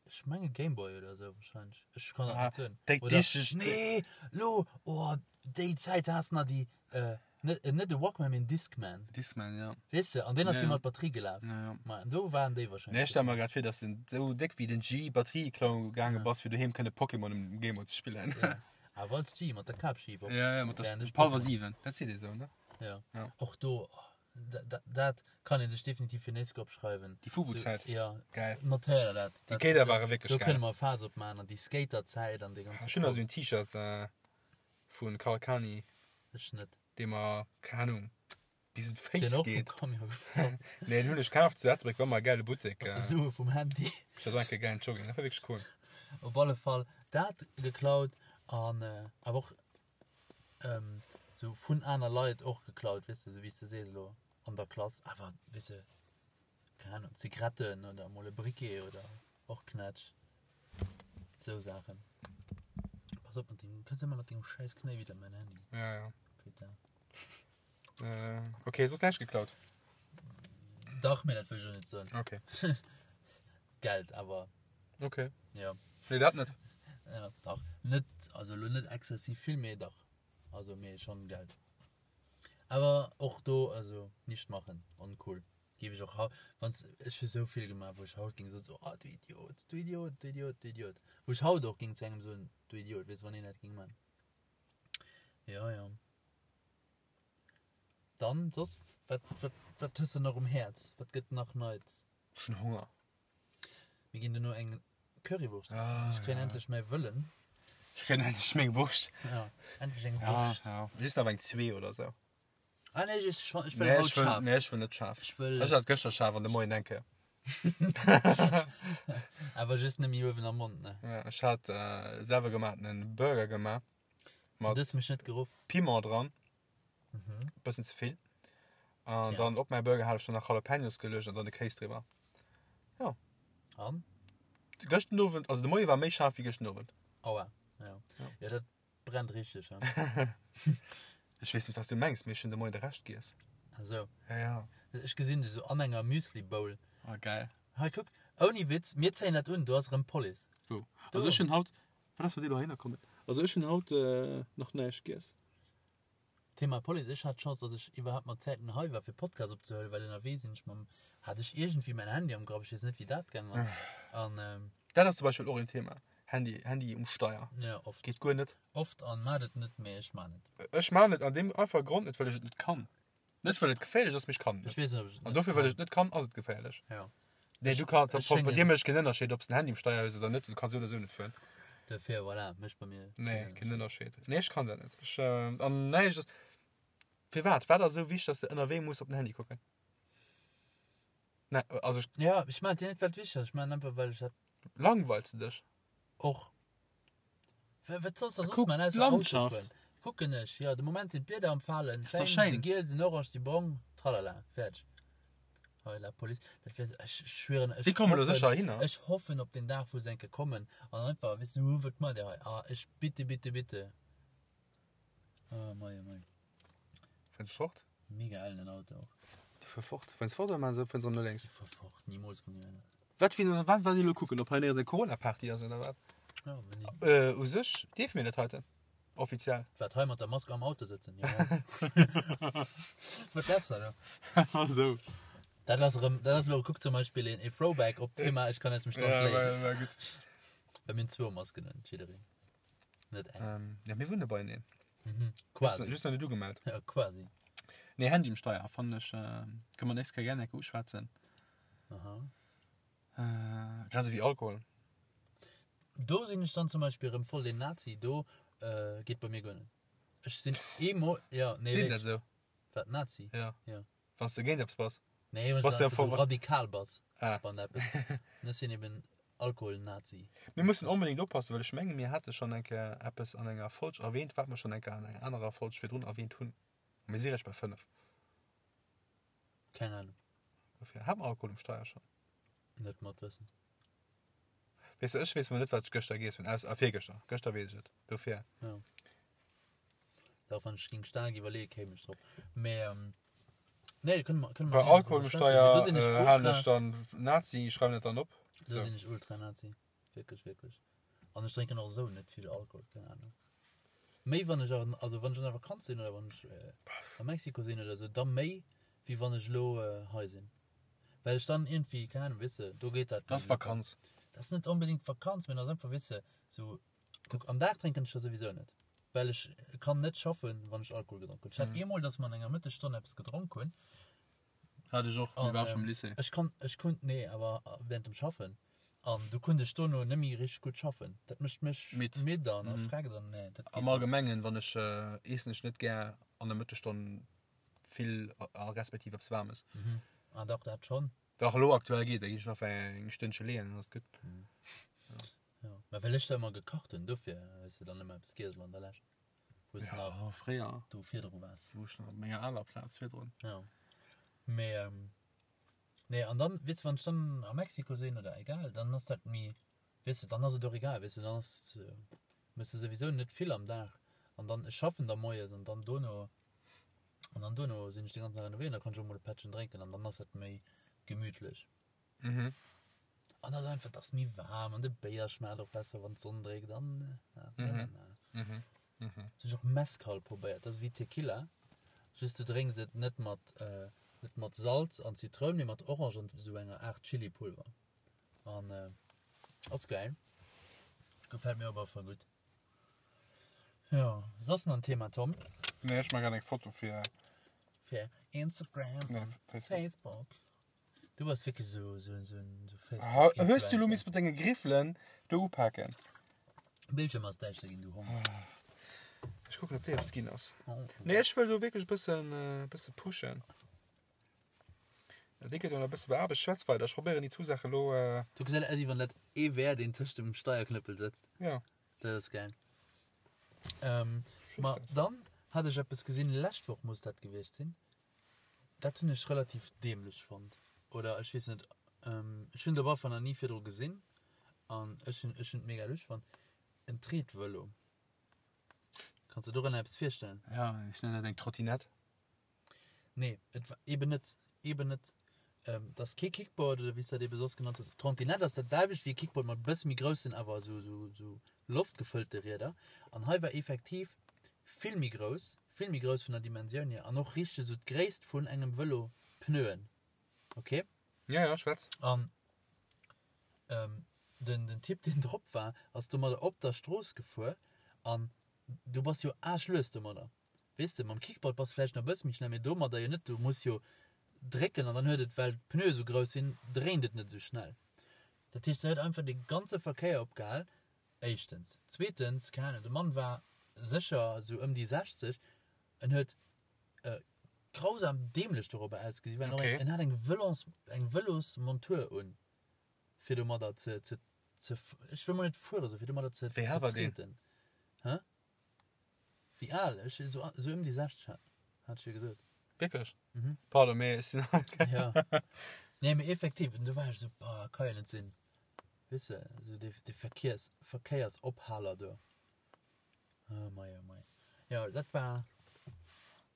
Ech menge Gameboy oder sou wahrscheinlech. Ech kann dat Ah, net soen. déi Oder, dichteg- nee, lo, oh, déi Zäit has nach déi, äh, net, äh, net e Walkman, mee en Discman. Discman, ja. Weess de, an deen ass Ja, jo ja. mat Batterie gelaf. Ja, ja. Ma an do waren déi wahrscheinlech. Nee, ech stelle mer grad vir, dass de sou déck wéi den G Batterie klauen gaange bass, fir doheem kënne Pokémon um Gameboy ze spillen. Ja. Awer als G, mat der Kapschif op. Ja, ja, mat der Während ech Palwer Pokémon- 7. Dat seet ee sou, ne? Ja. Ja. Och do, oh, dat, dat kann een sech definitiv fir nächst Joer opschreiwen. Déi Fubu-Zäit. So, ja. Geil. Notéier der dat. Déi Kéider ware wierklech Do geil. kënne mer e Faass opmaachen an déi Skater-Zäit an dee ganze Ech hunn nach sou en T-Shirt äh, vun Karl Kani, Ech net. dee mer, keng Ahnung, bis un Sinn d'Féiss och vum geet. Camion gefall. Nee, den hunn ech kaaft zu Ettelbréck, war ëmmer e gäile Buttek. Mat Äh, de Sue vum Handy. ech hat och eng Kéier gäilen Jogging, dat war wierklech cool. Op alle Fall dat geklaut an äh, awer och ähm, sou vun aner Leit och geklaut, weess de, sou wéi s de sees elo an der Klass, awer weess de, keng Ahnung, Zigaretten oder emol e Briquet oder och Knätsch, sou Saachen. Pass op mat dengem, du kënns ëmmer mat dengem schäiss Knéi widder mäin Handy. Ja, ja. Putain. Äh, okay, soss näischt geklaut? Dach, mee dat wëll ech elo net soen. Okay. Geld awer. Okay. Ja. Nee, dat net. Ja, dach. Net, also elo net exzessiv vill, mee dach. Also mee schon Geld. Awer och do, also nicht machen, uncool. Géif ech och haut, wanns, ech hu sou vill gemaach, wou ech haut géing soen, so, ah du Idiot, du Idiot, du Idiot, du Idiot. Wou ech haut och géing zu engem soen, du Idiot, weess, wann een dat géing man. Ja, ja. Dann soss, wat, wat, wat hues de nach um Häerz? Wat gëtt nach Neits? Ech hunn Honger. Mir ginn duerno eng Currywurscht essen. Ah, Ech kréien ja. endlech mäi Wëllen. Ech kréien endlech meng Wurscht. Ja, endlech eng Ja, Wurscht. ja. Just awer eng zwee oder sou. Ah nee, ech ess schon, ech wëll Nee, haut ech wëll, schaarf. nee, ech wëll net schaarf. Ech wëll. Ech hat gëschter schaarf an de Moien eng Kéier. Awer just nëmme uewen am Mond, ne? Ja, ech hat äh, selwer gemachtenen Burger gemaach. Du hues mech net geruff. Piment dran. Mhm. Bëssen ze vill. An Tja. dann op mäi Burger hat ech dann nach Jalapenos geluecht an dann de Kéis driwwer. Ja. An? Gëschten Owend, also de Moie war méi schaarf wéi gëschten Owend. Aua. Ja. Ja. Ja, dat brennt richteg, ja. Ech weess net, wat du mengs, mee ech hunn de Moien de Rescht giess. Ach sou. Ja, ja. Ech gesinn dech sou an enger Müsli-Bowl. Ah, geil. Hei, kuck, ouni Witz, mir zéien dat un, do ass erëm d'Police. Wou? Do. Also ech hunn haut, wat ass mat dir dohinner kommen? Also ech hunn haut nach näischt giess. Thema Police, ech hat d'Chance, dass ech iwwerhaapt mat Zäiten hei war fir Podcast opzehuelen, well ënnerwee sinn ech mam, hat ech iergendwéi mäin Handy am Grapp, ech weess net wéi dat gaang ass an. Dat ass zum Beispill och een Thema, Handy, Handy um Steier. Jo, oft. Geet guer net. Oft an maat et net, mee ech maan et. Ech maan et an deem einfache Grond net, well ech et net kann. Net well et geféierlech ass, mee ech kann et Ech net. weess net ob ech et An net dofir well kann. ech et net kann, ass et geféierlech. Jo. Nee, du kann, Ech bei schéngen. dir mécht keen Ënnerscheed, ob s den Handy um Steier hues oder net, du kanns esou oder esou net fueren. Dofir, voilà, mécht bei mir Nee, keen keen Ënnerscheed. Nee, ech kann dat net. Ech, an näischt ass, firwat? Wat ass esou wichteg, dass de ënnerwee muss op den Handy kucken? Nee, also ech. Ja, ech maan et jo net well et wichteg ass, ech maan et einfach well ech dat. Langweils de dech? Och. Wat solls de soss Kuck man ausser Auto d'Landschaft. fueren? Kucken ech, jo, de Moment sinn d'Blieder am Falen, Ass doch schéin, schéin. si giel, sinn orange, si brong, tralala, fäerdeg. Hei, la Police, dat wär, ech schwieren, ech Déi kommen elo hoffen, sécher heihinner. ech hoffen op den Dag, wou se eng Kéier kommen an einfach, weess du, wat maacht Dir hei? Ah, ech, bitte, bitte, bitte. Oh mei, oh mei. Fueren se fort? Mega ellen Auto och. Déi fuere fort. Fueren se fort oder maachen se, fueren se erëm no lénks? Déi fuere fort, nimools kommen déi heihinner. Wat fir wat wat déi elo kucken, ob hei néierens eng Corona-Party ass oder wat? Ja, wenn die, Äh, u sech dierfe mir dat heiten. Offiziell. wat hei mat der Mask am Auto sëtzen, jo. Wat glaubst du da? Ah sou. Dat ass erëm, dat ass elo, kuck zum Beispill een, ee Throwback op d'Thema Ech kann aus dem Stand Ja, léien. war, war gutt. Well mir hunn zwou Masken un, jiddereen. Net eng. Ähm, ja, mir wunne beieneen. Mhm. Just, Quasi. just nach net ugemellt. Ja, quasi. Nee, Handy um Steier fannen ech, äh, kënne mer nächst Kéier gär eng Kéier uschwätzen. Aha. Äh, grad esou wéi Alkohol. Do sinn ech dann zum Beispill erëm voll den Nazi, do äh, geet bei mir guer net. Ech sinn eemol, ja, nee, Sinn dat wierklech. esou? Wat, Nazi? Ja. Ja. Wann s de géint eppes bass. Nee, wann Bass s du du einfach voll- so radikal bass Ah. wann eppes. An ech sinn eben Alkohol-Nazi. Mir mussen onbedéngt oppassen, well ech menge mir hate schonn eng Kéier eppes an enger Folg erwähnt, wat mer schonn eng Kéier an enger anerer Folg virdrun erwähnt hunn. A mir si réischt bei 5. Keng Ahnung. Dofir, hat mer Alkohol um Steier schonn? Net mat Wëssen. Weess de, ech weess mol net, wat ech gëschter giess hunn, aus, ah, virgëschter. Gëschter weess ech et. Dofir. Ja. Dach, wann ech ging staark iwwerleeën, kéim ech drop. Mee, ähm, nee, kënne mer, kënne mer Bei gerne Alkohol drüber um schwätzen. Mee do Steier sinn ech äh, halen ultra, ech dann Nazi, schreiwen dat dann op. do So. sinn ech ultra Nazi. Wierklech, wierklech. An ech drénken och esou net vill Alkohol, keng Ahnung. Méi wann ech an, also wann ech an der Vakanz sinn oder wann ech äh, a Mexiko sinn oder esou, da méi wéi wann ech elo äh, hei sinn. Well ech dann iergendwéi, keng Ahnung, weess de, do geet dat Dat méi ass locker. Vakanz. Dat ass net onbedéngt Vakanz, mee dat ass einfach, weess de, sou, kuck, am Dag drénken ech der souwisou net, well ech kann net schaffen, wann ech Alkohol gedronk hunn. Ech hat eemol, dass mer an enger Mëttesstonn eppes gedronk hunn. Hat ech och, mee An, war ech am ähm, Lycée. ech kann, ech konnt, nee, awer während dem Schaffen. An du konnt ech dono net méi richteg gutt schaffen. Dat mécht mech Midd. midd an Mhm. erfreckt an nee, dat geet Am net. Allgemengen, wann ech, eessen ech net gär an der Mëttesstonn vill a respektiv eppes Waarmes. Mhm. Ah dach, dat schonn. Dach, elo aktuell geet, da ginn ech nach eng Stënnche leeën, dann ass et gutt. Ja. Mä well ech da ëmmer gekacht hunn, dofir hues de dann ëmmer eppes giess elo an der Lescht, wou s de nach Ja, fréier, do virdru waars. wou ech nach op menger aler Plaz virdrun. Ja. Mee, ähm, nee, an dann, weess de, wann ech dann a Mexiko sinn oder egal, dann ass dat méi, weess de, dann ass et och egal, weess de, dann ass, méchs de souwisou net vill am Dag an dann, ech schaffen da moies an dann dono. An dann duerno sinn ech den ganzen Dag ënnerwee an da kann ech och mol e Pättchen drénken an dann ass dat méi gemütlech. Mhm. An dat einfach, et ass méi waarm an de Béier schmaacht och besser, wann d'Sonn dréckt an ja, Mhm. Mhm. Mhm. Hunn ech och Mezcal probéiert, dat ass wéi Tequila, just du drénks et net mat äh, net mat Salz an Zitroun, mee mat Orange an esou enger Aart Chilipulver. An äh, ass geil. Gefält mir op alle Fall gutt. Jo, soss nach en Thema, Tom? Nee, ech maache grad eng Foto fir. Fir Instagram Nee, an Facebook. Facebook. Du bass wierklech esou esou esou en Ah, Hues du lo Facebook-Influencer. miss mat denge Griffelen do upaken? Bildschirm ass däischter ginn, du Hond. Ech kucken, ob déi eppes ginn ass. Oh. Nee, ech wëll do wierklech e bëssen, e bësse pushen. Déi gëtt jo nach e bësse beaarbecht. Schwätz weider, ech probéieren déi zwou Saache lo. Du gesäit aus, wéi wann dat ee wär, deen tëscht dem Steierknëppel sëtzt. Ja. Dat ass gäil. Ähm, ma dann hat ech eppes gesinn, lescht Woch muss dat gewiescht sinn. Dat hunn ech relativ dämlech fonnt. Oder ech weess net, ähm, ech hunn et op alle Fall nach ni virdru gesinn an ech hunn ech hunn et mega lusch fonnt. En Treetvëlo. Kanns de dorënner eppes virstellen? Ja, ech nennen dat eng Trottinett. Nee, et war eben net, eben net. Ähm, dat ass kee Kickboard oder wéi s dat ebe soss genannt hues. Trottinett ass dat selwecht wéi e Kickboard mat e bësse méi groussen, awer esou, esou, esou loftgefëllte Rieder. An hei war effektiv vill méi grouss, vill méi grouss vun der Dimensioun hier an och richteg esou d'Gréisst vun engem Vëlo Pneuen. Ok? Ja, ja, schwätz. An ähm, den, den Typ, deen drop war, ass domadder op der Strooss gefuer an Du bass jo aarschlues domadder. Weess de, mam Kickboard bass vläicht nach e bësse méi schnell, mee domadder jo net. Du muss jo drécken an dann huet et, well d'Pneue sou grouss sinn, dréint et net esou schnell. Dat heescht, se huet einfach de ganze Verkéier opgehal, éischtens. Zweetens, keng Ahnung, de Mann war sécher sou ëm déi 60, en huet grausam dämlech dorobber ausgesi, well en och eng, en hat eng Vëlons, eng Vëlosmontur un. fir domadder ze, ze, ze, ech wëll mol net fueren soen, fir domadder ze, Wéi ze al war deen? treten. Hä? Wéi al? Ech, esou, esou ëm déi 60 hat, hat ech jo gesot. Wierklech? Mhm. Pardon, mee ech sinn. Ja. Nee, mee effektiv, an du war ech esou, boah, ka jo net sinn. Weess de, esou dee, dee Verkiers, Verkéiersophaler do. Oh mei, oh mei. Jo, dat war.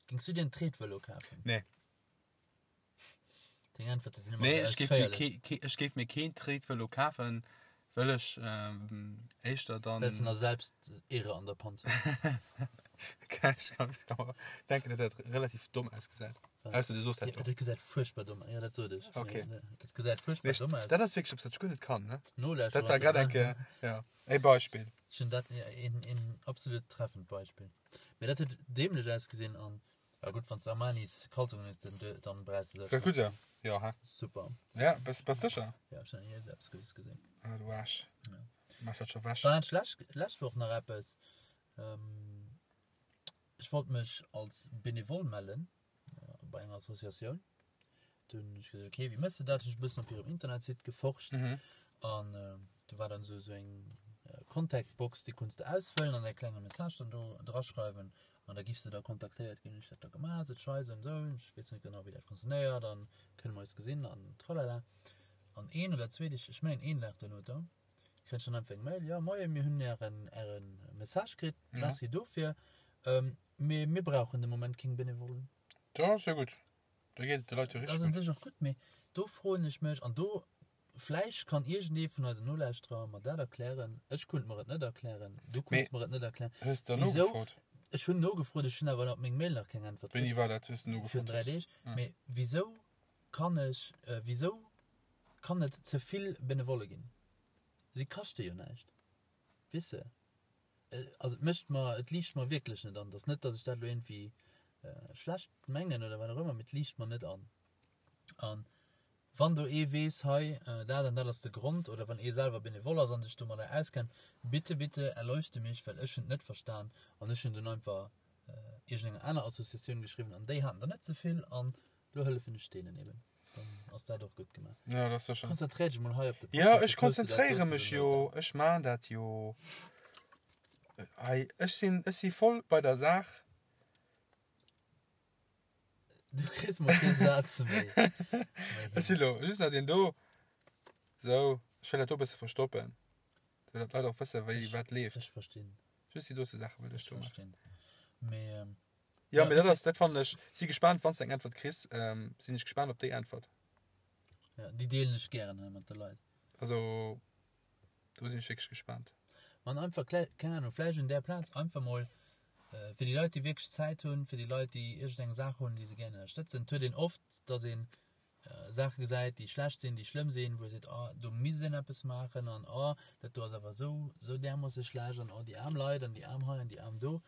Géings du dir en Tretvëlo kafen? Nee. Deng Äntwerte sinn ëmmer Nee, esou ech géif mir ausféierlech. kee, kee, ech géif mir keen Tretvëlo kafen, wëll ech ähm, éischter dann. Well s de nach selbst Ehre an der Panz hues. Ech kann, ech kann mer denken, datt dat relativ domm ausgesäit. Was? Ausser du soos dat Ja, jo. dat gesäit fuerchtbar domm aus. Ja, dat sot ech. Okay. Nee, dat gesäit Nee, fuerchtbar ech, domm aus. dat ass wierklech eppes, wat ech guer net kann, ne? Nolauschterer Dat war grad eng Kéier, ja, e Beispill. Ech hunn dat, ja, een, een absolut treffend Beispill. Mee dat huet dämlech ausgesinn an Ja gutt, wann s de Armanis Kalzongen hues, dann, dann brauchs de Ist dat gutt, ja? Ja, hä? Super. Ja, bass, bass sécher? Ja, ech hunn nach ni esou eppes Guddes gesinn. Ah, du Aarsch. Ja. Mach dat scho wech. Dann hat ech lescht, lescht Woch nach eppes. Ähm, ech wollt mech als Benevole mellen bei enger Associatioun. Du hunn ech gesot, okay, wéi mëss de dat? Hunn ech e bëssen op hirem Internetsite geforscht. Mhm. An do war dann esou esou eng Contact-Box, déi konns de ausfëllen an e klenge Message dann do draschreiwen an da giffs de da kontaktéiert ginn. Ech dat da gemaach, sot ech hei esou an esou, ech weess net genau wéi dat funktionéiert an kënne mer eis gesinn an tralala. An een oder zwee Deeg, ech mengen een Dag duerno da, kréien ech dann einfach eng Mail, jo moie mir hunn ären ären Message kritt, merci dofir, mee mir brauchen de Moment keng Benevollen. Dat ass jo gutt, da geet et de Leit jo Dat richteg ass un gutt. sech och gutt, mee do froen ech mech, an do Vläicht kann iergendee vun eisen Nolauschterer mer dat erklären. Ech kunnt mer et net erklären. Du kunns mer et net erklären. Hues de Wisou? nogefrot? Ech hunn nogefrot, ech hunn awer op meng Mail nach keng Äntwert Wéini kritt. war dat, wou s de Virun nogefrot 3 hues? Deeg. Mee wisou kann ech, wisou kann et ze vill Benevolle ginn? Si kaschte jo näischt. Weess de? Also et mécht mer, et liicht mer wierklech net an. Et ass net, datt ech dat elo iergendwéi schlecht mengen oder wat och ëmmer, mee et liicht mer net an. An Wann do ee weess, hei, dat an dat ass de Grond, oder wann ee selwer Benevole ass an sech domadder auskennt, bitte, bitte erleuchte mich, well ech hunn et net verstan an ech hunn dunn einfach iergendenger aner Associatioun geschriwwen an déi haten der net ze vill an lo hëllefen ech deenen eben. Dann ass dat och gutt gemaach. Ja, dat ass sécher. Konzentréier dech mol hei op de Ja, Podcast, ech da kriss du dat konzentréiere doten mech do jo, net. ech maan dat jo. Hei, ech sinn, ech si voll bei der Saach. Du kriss mol kee Saz méi. Ech si lo just nach deen do. Sou, ech wëll dat do e bësse verstoppen. Fir datt d'Leit och wësse wéi wat leeft. Ech verstinn. Just déi dote Saache wëll ech Ech do maachen. verstinn. Mee. Ja, mee dat ass, dat fannen ech, si gespaant, wann s de eng Äntwert kriss, sinn ech gespaant op déi Äntwert. Ja, déi deelen ech gären hei mat de Leit. Also, do sinn ech wierklech gespaant. Man einfach, keng Ahnung, vläicht un där Plaz einfach mol fir déi Leit, déi wierklech Zäit hunn, fir déi Leit, déi iergendeng Saach hunn, déi se gären ënnerstëtzen. Et huet een oft, dass een Saache gesäit, déi schlecht sinn, déi schlëmm sinn, wou ee seet, oh, do misst een eppes maachen an oh, dat do ass awer esou, esou därmoosse schlecht an oh, déi aarm Leit an déi aarm hei an déi aarm do.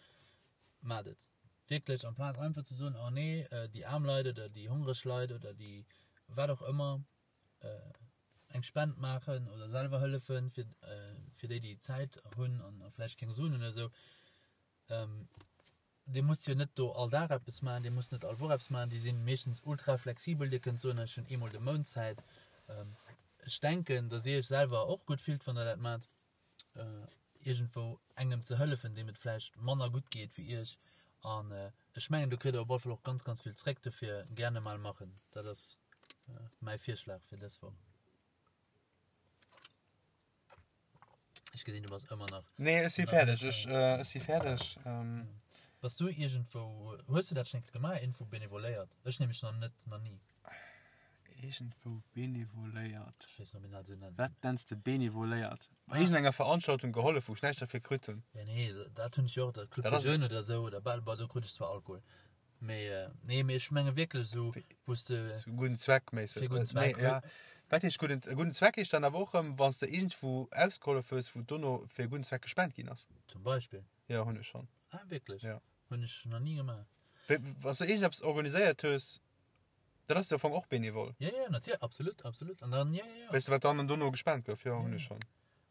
Maacht et wierklech, amplaz einfach ze soen, oh nee, déi aarm Leit oder déi hongreg Leit oder déi wat och ëmmer, eng Spend maachen oder selwer hëllefen, fir, fir déi, déi Zäit hunn an vläicht keng Suen hunn oder esou. Dir musst jo net do all Dag eppes maachen, Dir musst net all Woch eppes maachen, déi si meeschtens ultra flexibel. Dir kënnt soen, ech hunn eemol de Mount Zäit. Ech denken, datt Dir Iech selwer och gutt fillt, wann Der dat maacht, iergendwou engem ze hëllefen, deem et vläicht manner gutt geet wéi Iech. An ech mengen, do kritt Der op alle Fall och ganz, ganz vill zréck. Dofir gerne mal machen. Dat ass mäi Virschlag fir dës Woch. Ech gesinn, du bass ëmmer nach. Nee, ech si fäerdeg. Ech, ech si fäerdeg. Bass du iergendwou, hues du dat schonn eng Kéier gemaach, iergendwou benevoléiert? Ech nämlech nach net, nach ni. Iergendwou benevoléiert? Ech weess net, ob een dat esou nennt. Wat nenns de benevoléiert? Bei iergendenger Veranstaltung gehollef, wou ech näischt derfir kritt hunn? Ja, nee, dat hunn ech jo och, dat Club des Jeunes oder esou, oder bal, bon, do krut ech zwar Alkohol. Mee, nee, mee ech menge wierklech esou, wou s de. Fir gudden Zweck méisseg. Fir gudden Zweck. Nee, ja. Wat heescht gudden, gudden Zweck heescht dann awer och erëm, wann s de iergendwou ausgehollef hues, wou dono fir e gudden Zweck gespent ginn ass. Zum Beispill. Jo, hunn ech schonn. Ah, wierklech? Ja. Hunn ech nach ni gemaach. Wéi, wann s de iergendeppes organiséiert hues, dat ass jo am Fong och benevol. Ja, ja, natierlech, absolut, absolut. An dann, ja, ja, ja. Weess de, wat dann dono gespent gouf? Jo, hunn ech schonn.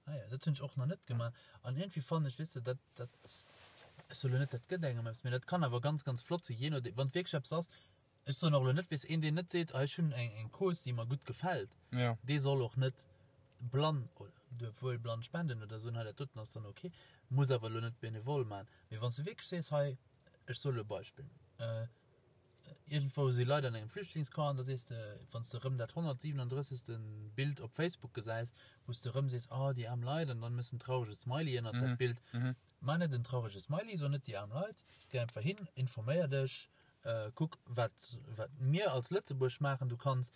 Ah ja, dat hunn ech och nach net gemaach. An iergendwéi fannen ech, weess de, dat, dat, ech soe lo net, dat gëtt engem eppes, mee dat kann awer ganz, ganz flott sinn, jee nodeem, wann et wierklech eppes ass, ech soen och lo net, weess, een, deen net seet, ah ech hunn eng, eng Cause, déi mer gutt gefält, Ja. dee soll och net blann, oder duerf wuel blann spenden oder soen, hei dat doten ass dann ok, muss awer lo net benevol maachen. Mee wann s de wierklech sees, hei, ech soe lo e Beispill, Iergendwou si Leit an engem Flüchtlingscamp an da sees de, wann s de erëm dat 137. Bild op Facebook gesäis, wou s de erëm sees, oh déi aarm Leit an dann méchs en traurege Smiley ënnert dat Bild. Maach net en traurege Smiley, so net déi aarm Leit, géi einfach hin, informéier dech, kuck wat wat mir als Lëtzebuerg maachen. Du kanns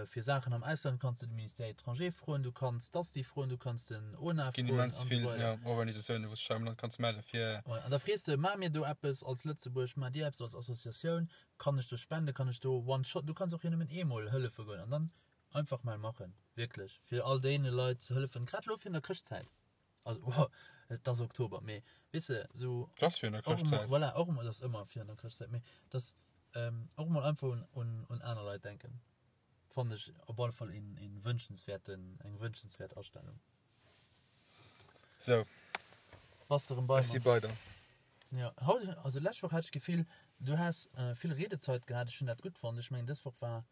fir Saachen am Ausland kanns de de Ministère étranger froen, du kanns d'ASTI froen, du kanns den ONA Ginn froen immens an vill esou weider. ja, Organisatiounen, wou s de dech am Land kanns melle fir. Ouais, an da frees de, Maache mir do eppes als Lëtzebuerg, maacht Dir eppes als Associatioun, kann ech do spenden, kann ech do one shot, du kanns och jo nëmmen eemol hëllefe goen an dann einfach mol maachen, wierklech, fir all deene Leit ze hëllefen, grad elo virun der Chrëschtzäit. Also, wow, et ass Oktober, mee weess de, esou. Et ass virun der Och emol, Chrëschtzäit. voilà, och emol, et ass ëmmer virun der Chrëschtzäit, mee dass och emol einfach un, un, un aner Leit denken. Fannen ech op alle Fall een, een wünschenswerten, eng wünschenswert Astellung. Sou. Bass de rem bei Ech si mer? bei der. Ja, haut, also lescht Woch hat ech d'Gefill, du has vill Riedezeit gehat, ech hunn dat gutt fonnt. Ech mengen dës Woch war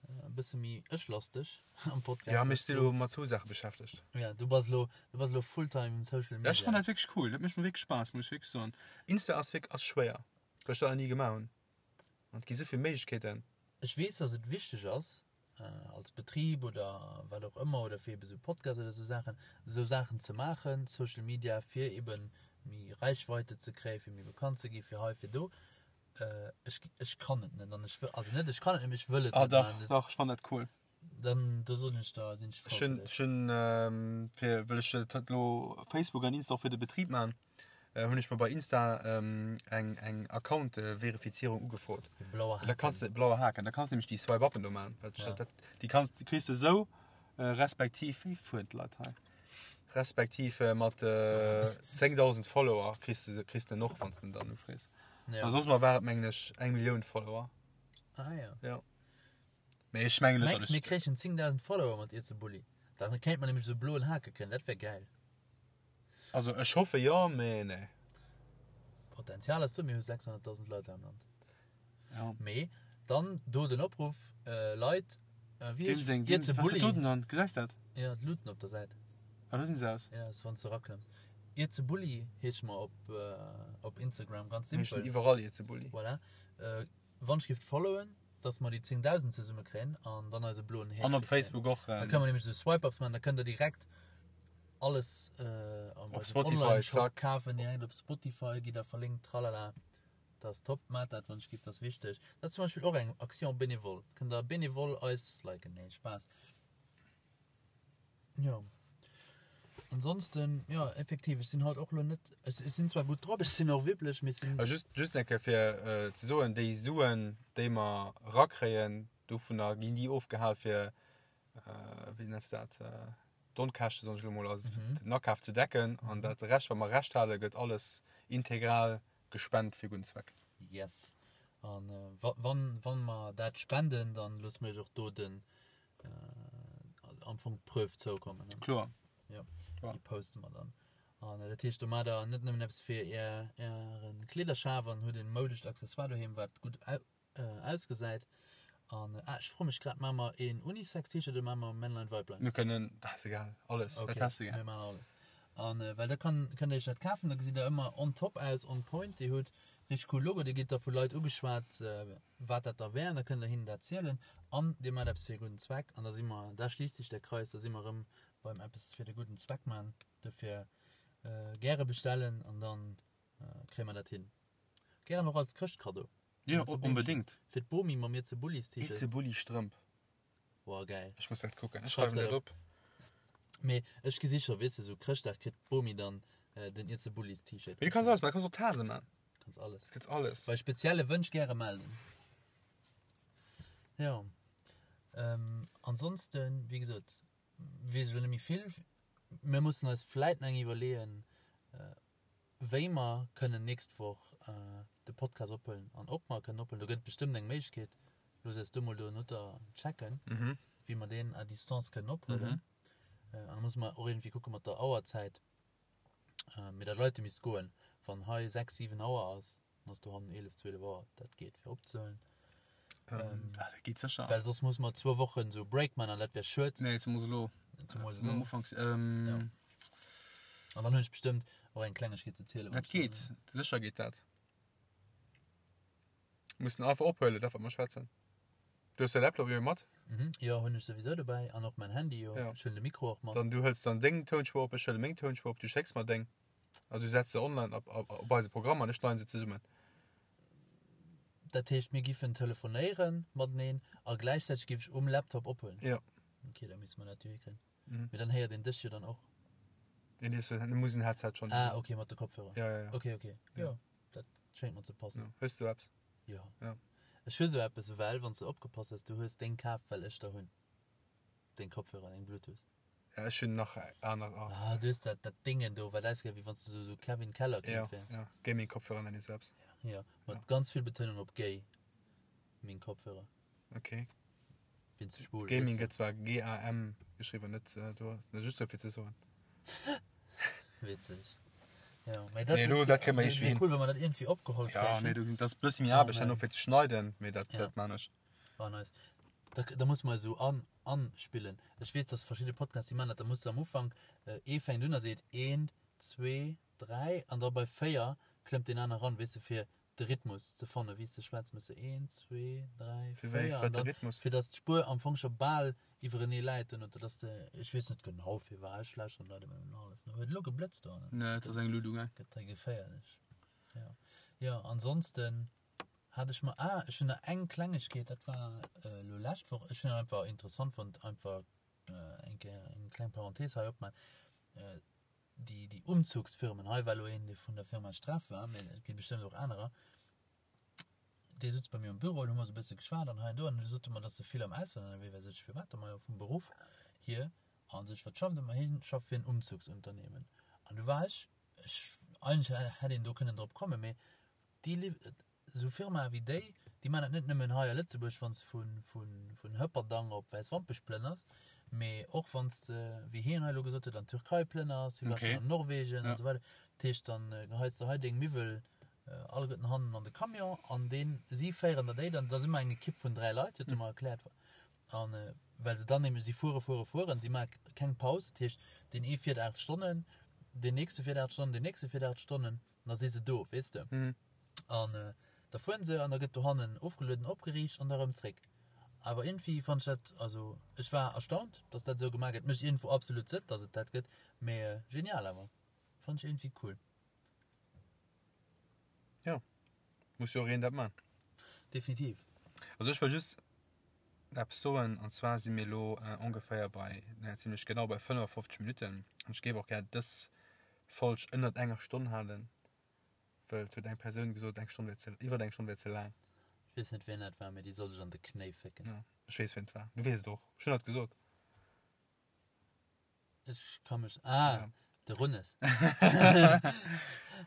e bësse méi ech-lasteg am Podcast. Ja, mee ech si lo mat zwou Saache beschäftegt. Ja, du bass lo, du bass lo fulltime Social Ja, ech Media. fannen dat wierklech cool, dat mécht mer wierklech Spaass, muss ech wierklech soen. Insta ass wierk, ass schwéier, well ech dat nach ni gemaach hunn. An et gi sou vill Méiglechkeeten. Ech weess, dass et wichteg ass, als Betrib oder wat och ëmmer, oder fir ebe sou Podcasts oder sou Saachen, sou Saachen ze maachen, Social Media, fir ebe méi Reichweite ze kréien, fir méi bekannt ze ginn, fir hei, fir do. Ech, ech kann et net an ech wëll, also net ech kann et net, mee ech wëll et Ah net dach, maachen. dach, ech fannen dat cool. Dann, do soen ech der, sinn ech frou Ech hunn, fir dech. ech hunn, fir, well ech dat elo Facebook an Insta och fir de Betrib maachen, hunn ech mer bei Insta eng eng Account-Verifizierung ugefrot. De blaue Da kanns Haken. de, blaue Haken, da kanns de nämlech déi Swipe-Uppen do maachen. Dat, Ja. dat, déi kanns, déi kriss de esou, respektiv, wéi fueren d'Leit hei? Respektiv mat 10.000 Follower kriss de, kriss de en och, wann s de en dann ufrees. Ja. A soss mol war et, mengen ech, eng Millioun Follower. Ah ja. Ja. Mee ech mengen net, Mengs datt mir ech. kréichen 10.000 Follower mat Irzebulli? Dann kéint mer nämlech esou bloen Hake kréien, dat wär gäil. Also ech hoffe jo, mee nee. Potenzial ass do, mir hu 600.000 Leit hei am Land. Ja. Mee dann do den Opruff, Leit, wéi Deem heescht seng, deem, Iert ze was Bulli? dat do denn dann? Gesäis dat? Ja, d'Luuten op der Säit. Ah, do sinn se aus. Ja, ass wann s de eraklëmms. Iert ze Bulli heesche mer op, op Instagram, ganz Mir heeschen simpel. iwwerall Iert ze Bulli. Voilà. Wann ech giff followen, dass mer déi 10.000 zesumme kréien an dann eise bloen An op Häkche kréien. Facebook och. Da kënne mer nämlech esou Swipe-Ups maachen, da kënnt der direkt alles am Op Spotify, Online-Shop zack. kafen, direkt op Spotify gitt der verlinkt, tralala. Dat ass top. Maacht dat, wann ech giff, dat ass wichteg. Dat ass zum Beispill och eng Action bénévole. Kënnt der bénévole eis liken. Nee, Spaass. Jo. Ansonsten, jo, effektiv, ech sinn haut och lo net, ech, ech sinn zwar gutt drop, ech sinn och wibbleg, mee ech sinn. A just, just eng Kéier fir äh, ze soen, déi Suen, déi mer rakréien, dovunner ginn déi ofgehal fir, äh, wéi nenns de dat, äh, d'Onkäschte, soen ech elo mol, also Mhm. den Akaf ze decken. An dat Rescht, wat mer Rescht halen, gëtt alles integral gespent fir gudden Zweck. Yes. An äh, wa, wann, wann mer dat spenden, dann loosse mer iech och do den, am Fong d'Preuve zoukommen. Ne? Kloer. Ja. Kloer. Déi poste mer dann. An äh, dat heescht, do maacht der net nëmmen eppes fir är, ären Kleederschaf an hutt en moudescht Accessoire doheem, wat gutt au, äh, ausgesäit. An äh, ah, ech froe mech grad, maache mer een Unisex-T-Shirt oder maache mer Männlein, Weiblein? Mir kënnen, dat ass egal, alles, Okay, dat ass egal. mir maachen alles. An äh, well da kann, kënnt der iech dat kafen, da gesitt der ëmmer on top aus, on point. Dir hutt richtig cool Logo, dir gitt da vu Leit ugeschwat, äh, wat dat da wär, an da kënnt der hinnen dat zielen an dir maacht eppes fir e gudden Zweck an da si mer, da schliisst sech der Kreis, da si mer erëm beim eppes fir de gudden Zweck man. Dofir gäre bestellen an dann kréie mer dat hin. Gären och als Chrëschtkaddo. Jo, onbedéngt. Fir d'Bomi mam Ieze Bullis T-Shirt. Ieze Bulli Strëmp. Woah, gäil. Ech muss dat kucken, ech schreiwen dat op. Mee ech gesi scho, weess de, sou Chrëschtdag kritt d'Bomi dann den Ieze Bullis T-Shirt. Mee du kanns alles man, du kanns och Tase man. Kanns alles. Et gëtt alles. Bei spezielle Wënsch gäre melden. Jo. Ähm, ansonsten, wéi gesot, weess ech elo net méi vill. Mir mussen eis vläit nach eng iwwerleeën, wéi mer kënnen nächst Woch de Podcast ophuelen an ob mer kënnen ophuelen. Do gëtt et bestëmmt eng Méiglechkeet. Looss eis do mol donoter checken, wéi mer deen à distance kënnen ophuelen. An da musse mer och iergendwéi kucke mat der Auerzäit. Mee dat Leite misst goen. Wann hei 6, 7 Auer ass, dann ass dohannen 11, 12 Auer. Dat geet fir opzehuelen. Ähm, ah, dat geet sécher. Well soss muss mer zwou Wochen sou Break man an dat wär schued. Nee, zemools elo. Zemools Am elo. Ufank. Ähm, Ja. An dann hunn ech bestëmmt och eng Klengegkeet ze zielen. Dat geet. Sécher geet dat. Mussen einfach ophuelen, dat wat mer schwätzen. Du hues de Laptop jo mat? Mhm. Jo, hunn ech souwisou dobäi an och mäin Handy jo. Ja. Ech huelen de Mikro och mat. Dann du hëls dann deng Tounspuer op, ech huele meng Tounspuer op, du schécks mer deng. Also du setz se online op, op, op eise Programm an ech schneiden se zesummen. Dat heescht, mir giffen telefonéieren mateneen a gläichzäiteg giff ech um Laptop ophuelen? Ja. Okay, da misste mer dat jo hikréien. Mhm. Mee dann héiert een dech jo dann och. Nee, nee, du muss en Headset schon. Ah, okay, mat de Kopfhörer. Ja, ja, ja. Okay, okay. Ja. Jo, dat schéngt mer ze passen. Ja. Hues du eppes? Jo. Ja. Ech hu sou eppes, well wann s de opgepasst häss, du hues deng kaf, well ech der hunn. Deng Kopfhörer, deng Bluetooth. Ja, ech hunn nach aner. Ah. Ah, du hues dat, dat Déngen do, wat ausgesäit, wéi wann s du sou, sou Kevin Keller Ja, Kind wäers. ja. Gaming-Kopfhörer nennen ech sou eppes. Ja, mat ganz vill Betounung op gay. Meng Kopfhörer. Okay. Wéinst schwul. Gaming gëtt zwar GAM geschriwwen, net do, just dofir ze soen. Witzeg. Ja, mee dat, Nee, lo, dat kréie mer iergendwéi hin. Cool, wa mer dat iergendwéi opgeholl Ja, kréien. nee, do, dat ass e bësse méi Aarbecht herno fir ze schneiden, mee dat, Ja. dat man ech. Oh, nice. Da, da muss mer esou an, anspillen. Ech weess, dass verschidde Podcasts, déi man dat, da muss de am Ufank, äh, ee fänkt un a seet eent, zwee, dräi, an da bei véier klëmmt deen aner ran, weess de, fir de Rhythmus ze fannen, wéi s de schwätz, méchs de een, zwee, dräi, Fir wéi, véier an wat de dann, Rhythmus? fir dass d'Spuer am Fong scho bal iwwerenee läit duerno, dass de, ech weess net genau firwat, ech lauschteren d'Leit ëmmer nëmmen hallef no. Huet elo geblëtzt dohannen? Nee, et ass eng Luut ugaang. Gëtt hei geféierlech. Jo, jo, ansonsten hat ech mer, ah, ech hunn nach eng Klengegkeet, dat war elo lescht Woch, ech hunn dat einfach interessant fonnt, einfach eng Kéier eng kleng Parenthese hei opmaachen, déi, déi Umzugsfirmen, hei war elo een, dee vun der Firma Streff war, mee et gi bestëmmt och anerer, dee sutz bei mir am Büro an hu mer esou e bësse geschwat an hei an do an du sot e mer, dass e vill am Ausland ënnerwee war. Sot ech, firwat da? Majo vum Beruff hier. An sot ech, wat schafft e? Ma hien schafft fir en Umzugsunternehmen. An du war ech, ech, eigentlech hätt een do kënnen drop kommen, mee déi, Esou Firmae wéi déi, déi maachen dat net nëmmen hei a Lëtzebuerg, wann s de vun Hëpperdang op Wäiswampech plënners, mee och wann s de, wéi hien hei elo gesot huet, an d'Türkei plënners, hie war schonn an Norwegen an esou weider. Dat heescht, dann geheis de hei deng Miwwel alleguerten hannen an de Camion an deen, si féieren der déi dann, dat ass ëmmer eng Ekipp vun 3 Leit, huet e mer erkläert, a well se dann nämlech, si fuere, fuere, fueren, si maache keng Paus, dat heescht, deen ee fiert 8 Stonnen, deen nächste fiert 8 Stonnen, deen nächste fiert 8 Stonnen. Da si se do, weess de. An da fueren se an da gëtt dohannen ofgelueden, opgeriicht an da rëm zréck. Awer iergendwéi fannt ech dat, also ech war erstaunt, dass dat esou gemaach gëtt. Mécht iergendwou absolut Sënn, dass et dat gëtt, mee genial awer. Fannt ech iergendwéi cool. Jo. Muss jo och een dat man. Definitiv. Also ech wëll just eppes soen, an zwar si mir elo ongeféier bei, naja zimlech genau bei 55 Minutten. An ech géif och gär dës Folg ënnert enger Stonn halen, well et huet eng Persoun gesot, eng Stonn wär ze, iwwert eng Stonn wär ze laang. Ech weess net wien dat war, mee déi soll sech an de Knéi fécken. Ja, ech weess wien et war. Du weess et och. Ech hunn dat gesot. Ech ka mech. Ah, ja. de Runnes.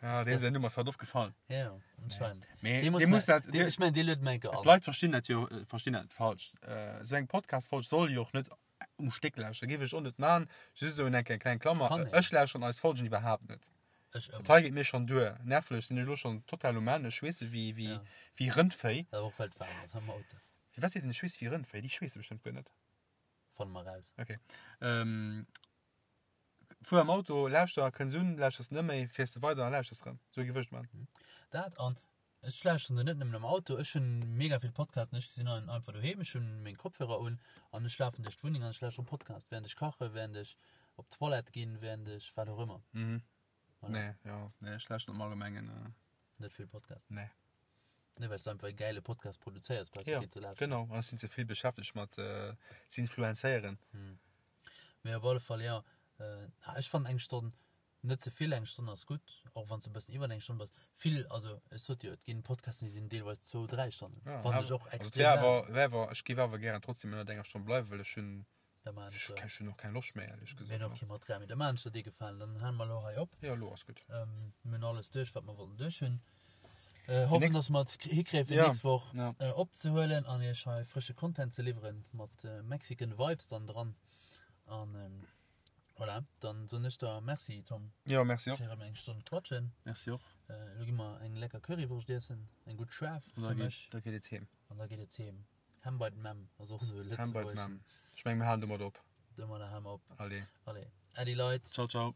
ja, dee säin Numm ass haut opgefall. Ja, anscheinend. Nee. Dee muss, dee muss dat, dee, ech mein, dee luet menke an. D'Leit verstinn dat jo, äh, verstinn dat falsch. Äh, sou eng Podcast-Folg soll jo och net um Stéck lauschteren. Géif ech och net man. Just esou eng kleng Klammer. Kann een. Ech lauschteren eis Folgen iwwerhaapt net. Ech ëmmer. Dat hei geet mir schonn duer. Nervlech sinn ech elo schonn total um Enn. Ech schweesse wéi, wéi, Ja. wéi Rëndvéi. Awer och well et waarm ass am Auto. Firwat seet een ech schweesse wéi Rëndvéi? Déi schweesse bestëmmt guer net. Fanne mer raus. Ok. Ähm, fuer am Auto, lauschter, kënns un, lauschters net méi, fiers de weider a lauschters rëm. Sou géif ech et man. Dat an ech lauschteren se net nëmmen am Auto, ech hunn mega vill Podcasten, ech sinn einfach doheem, ech hunn meng Kopfhörer un an ech lafen duerch d'Wunneng an ech lauschteren Podcast, während ech kachen, während ech op d'Toilette ginn, während ech wat och ëmmer. Mhm. Voilà. Nee, jo, nee, ech lauschteren am Allgemengen. Äh, Net vill Podcast. Nee. Nee, well s du einfach e gäile Podcast produzéiers, brauchs du Ja, keen ze lauschteren. genau. An ech sinn ze vill beschäftegt mat äh, ze influenzéieren. Mee op alle Fall, jo. Äh, ech fannen eng Stonn net ze vill, eng Stonn ass gutt, och wann s de e bëssen iwwer eng Stonn bass. Vill, also ech sot jo, et ginn Podcasten, déi sinn deelweis zwou, dräi Stonnen. Ja, Fannen ech awer- och also et extrem wär laang. awer, wär awer, ech géif awer gären trotzdem ënnert enger Stonn bleiwen, well ech hunn, Da maachen ech ech der. ech hunn och keng Loscht méi, éierlech Mir gesot. hunn och kee Material méi. Da maachen ech der dee Gefalen. Dann hale mer elo hei op. Jo, elo ass gutt. Ähm, mir hunn alles duerch, wat mer wollten duerch hunn. Äh, hoffen, nächst- dass mer et hikréien, fir Ja, nächst Woch ja. äh, opzehuelen an iech hei frësche Content ze liwweren mat äh, Mexican Vibes dann dran. An ähm, voilà, dann soen ech der Merci, Tom, Jo, merci och. fir erëm eng Stonn quatschen. Merci och. Äh, elo gi mer eng lecker Currywurscht iessen, eng gutt schaarf An da fir geet, mech. da geet et heem. An da geet et heem. Hem bei d'Memm ass och esou e Hem bei lëtzebuergeschen. d'Memm. Ech meng, mir halen domat op. Domadder hale mer op. Allez. Allez, Äddi Leit. Ciao, ciao.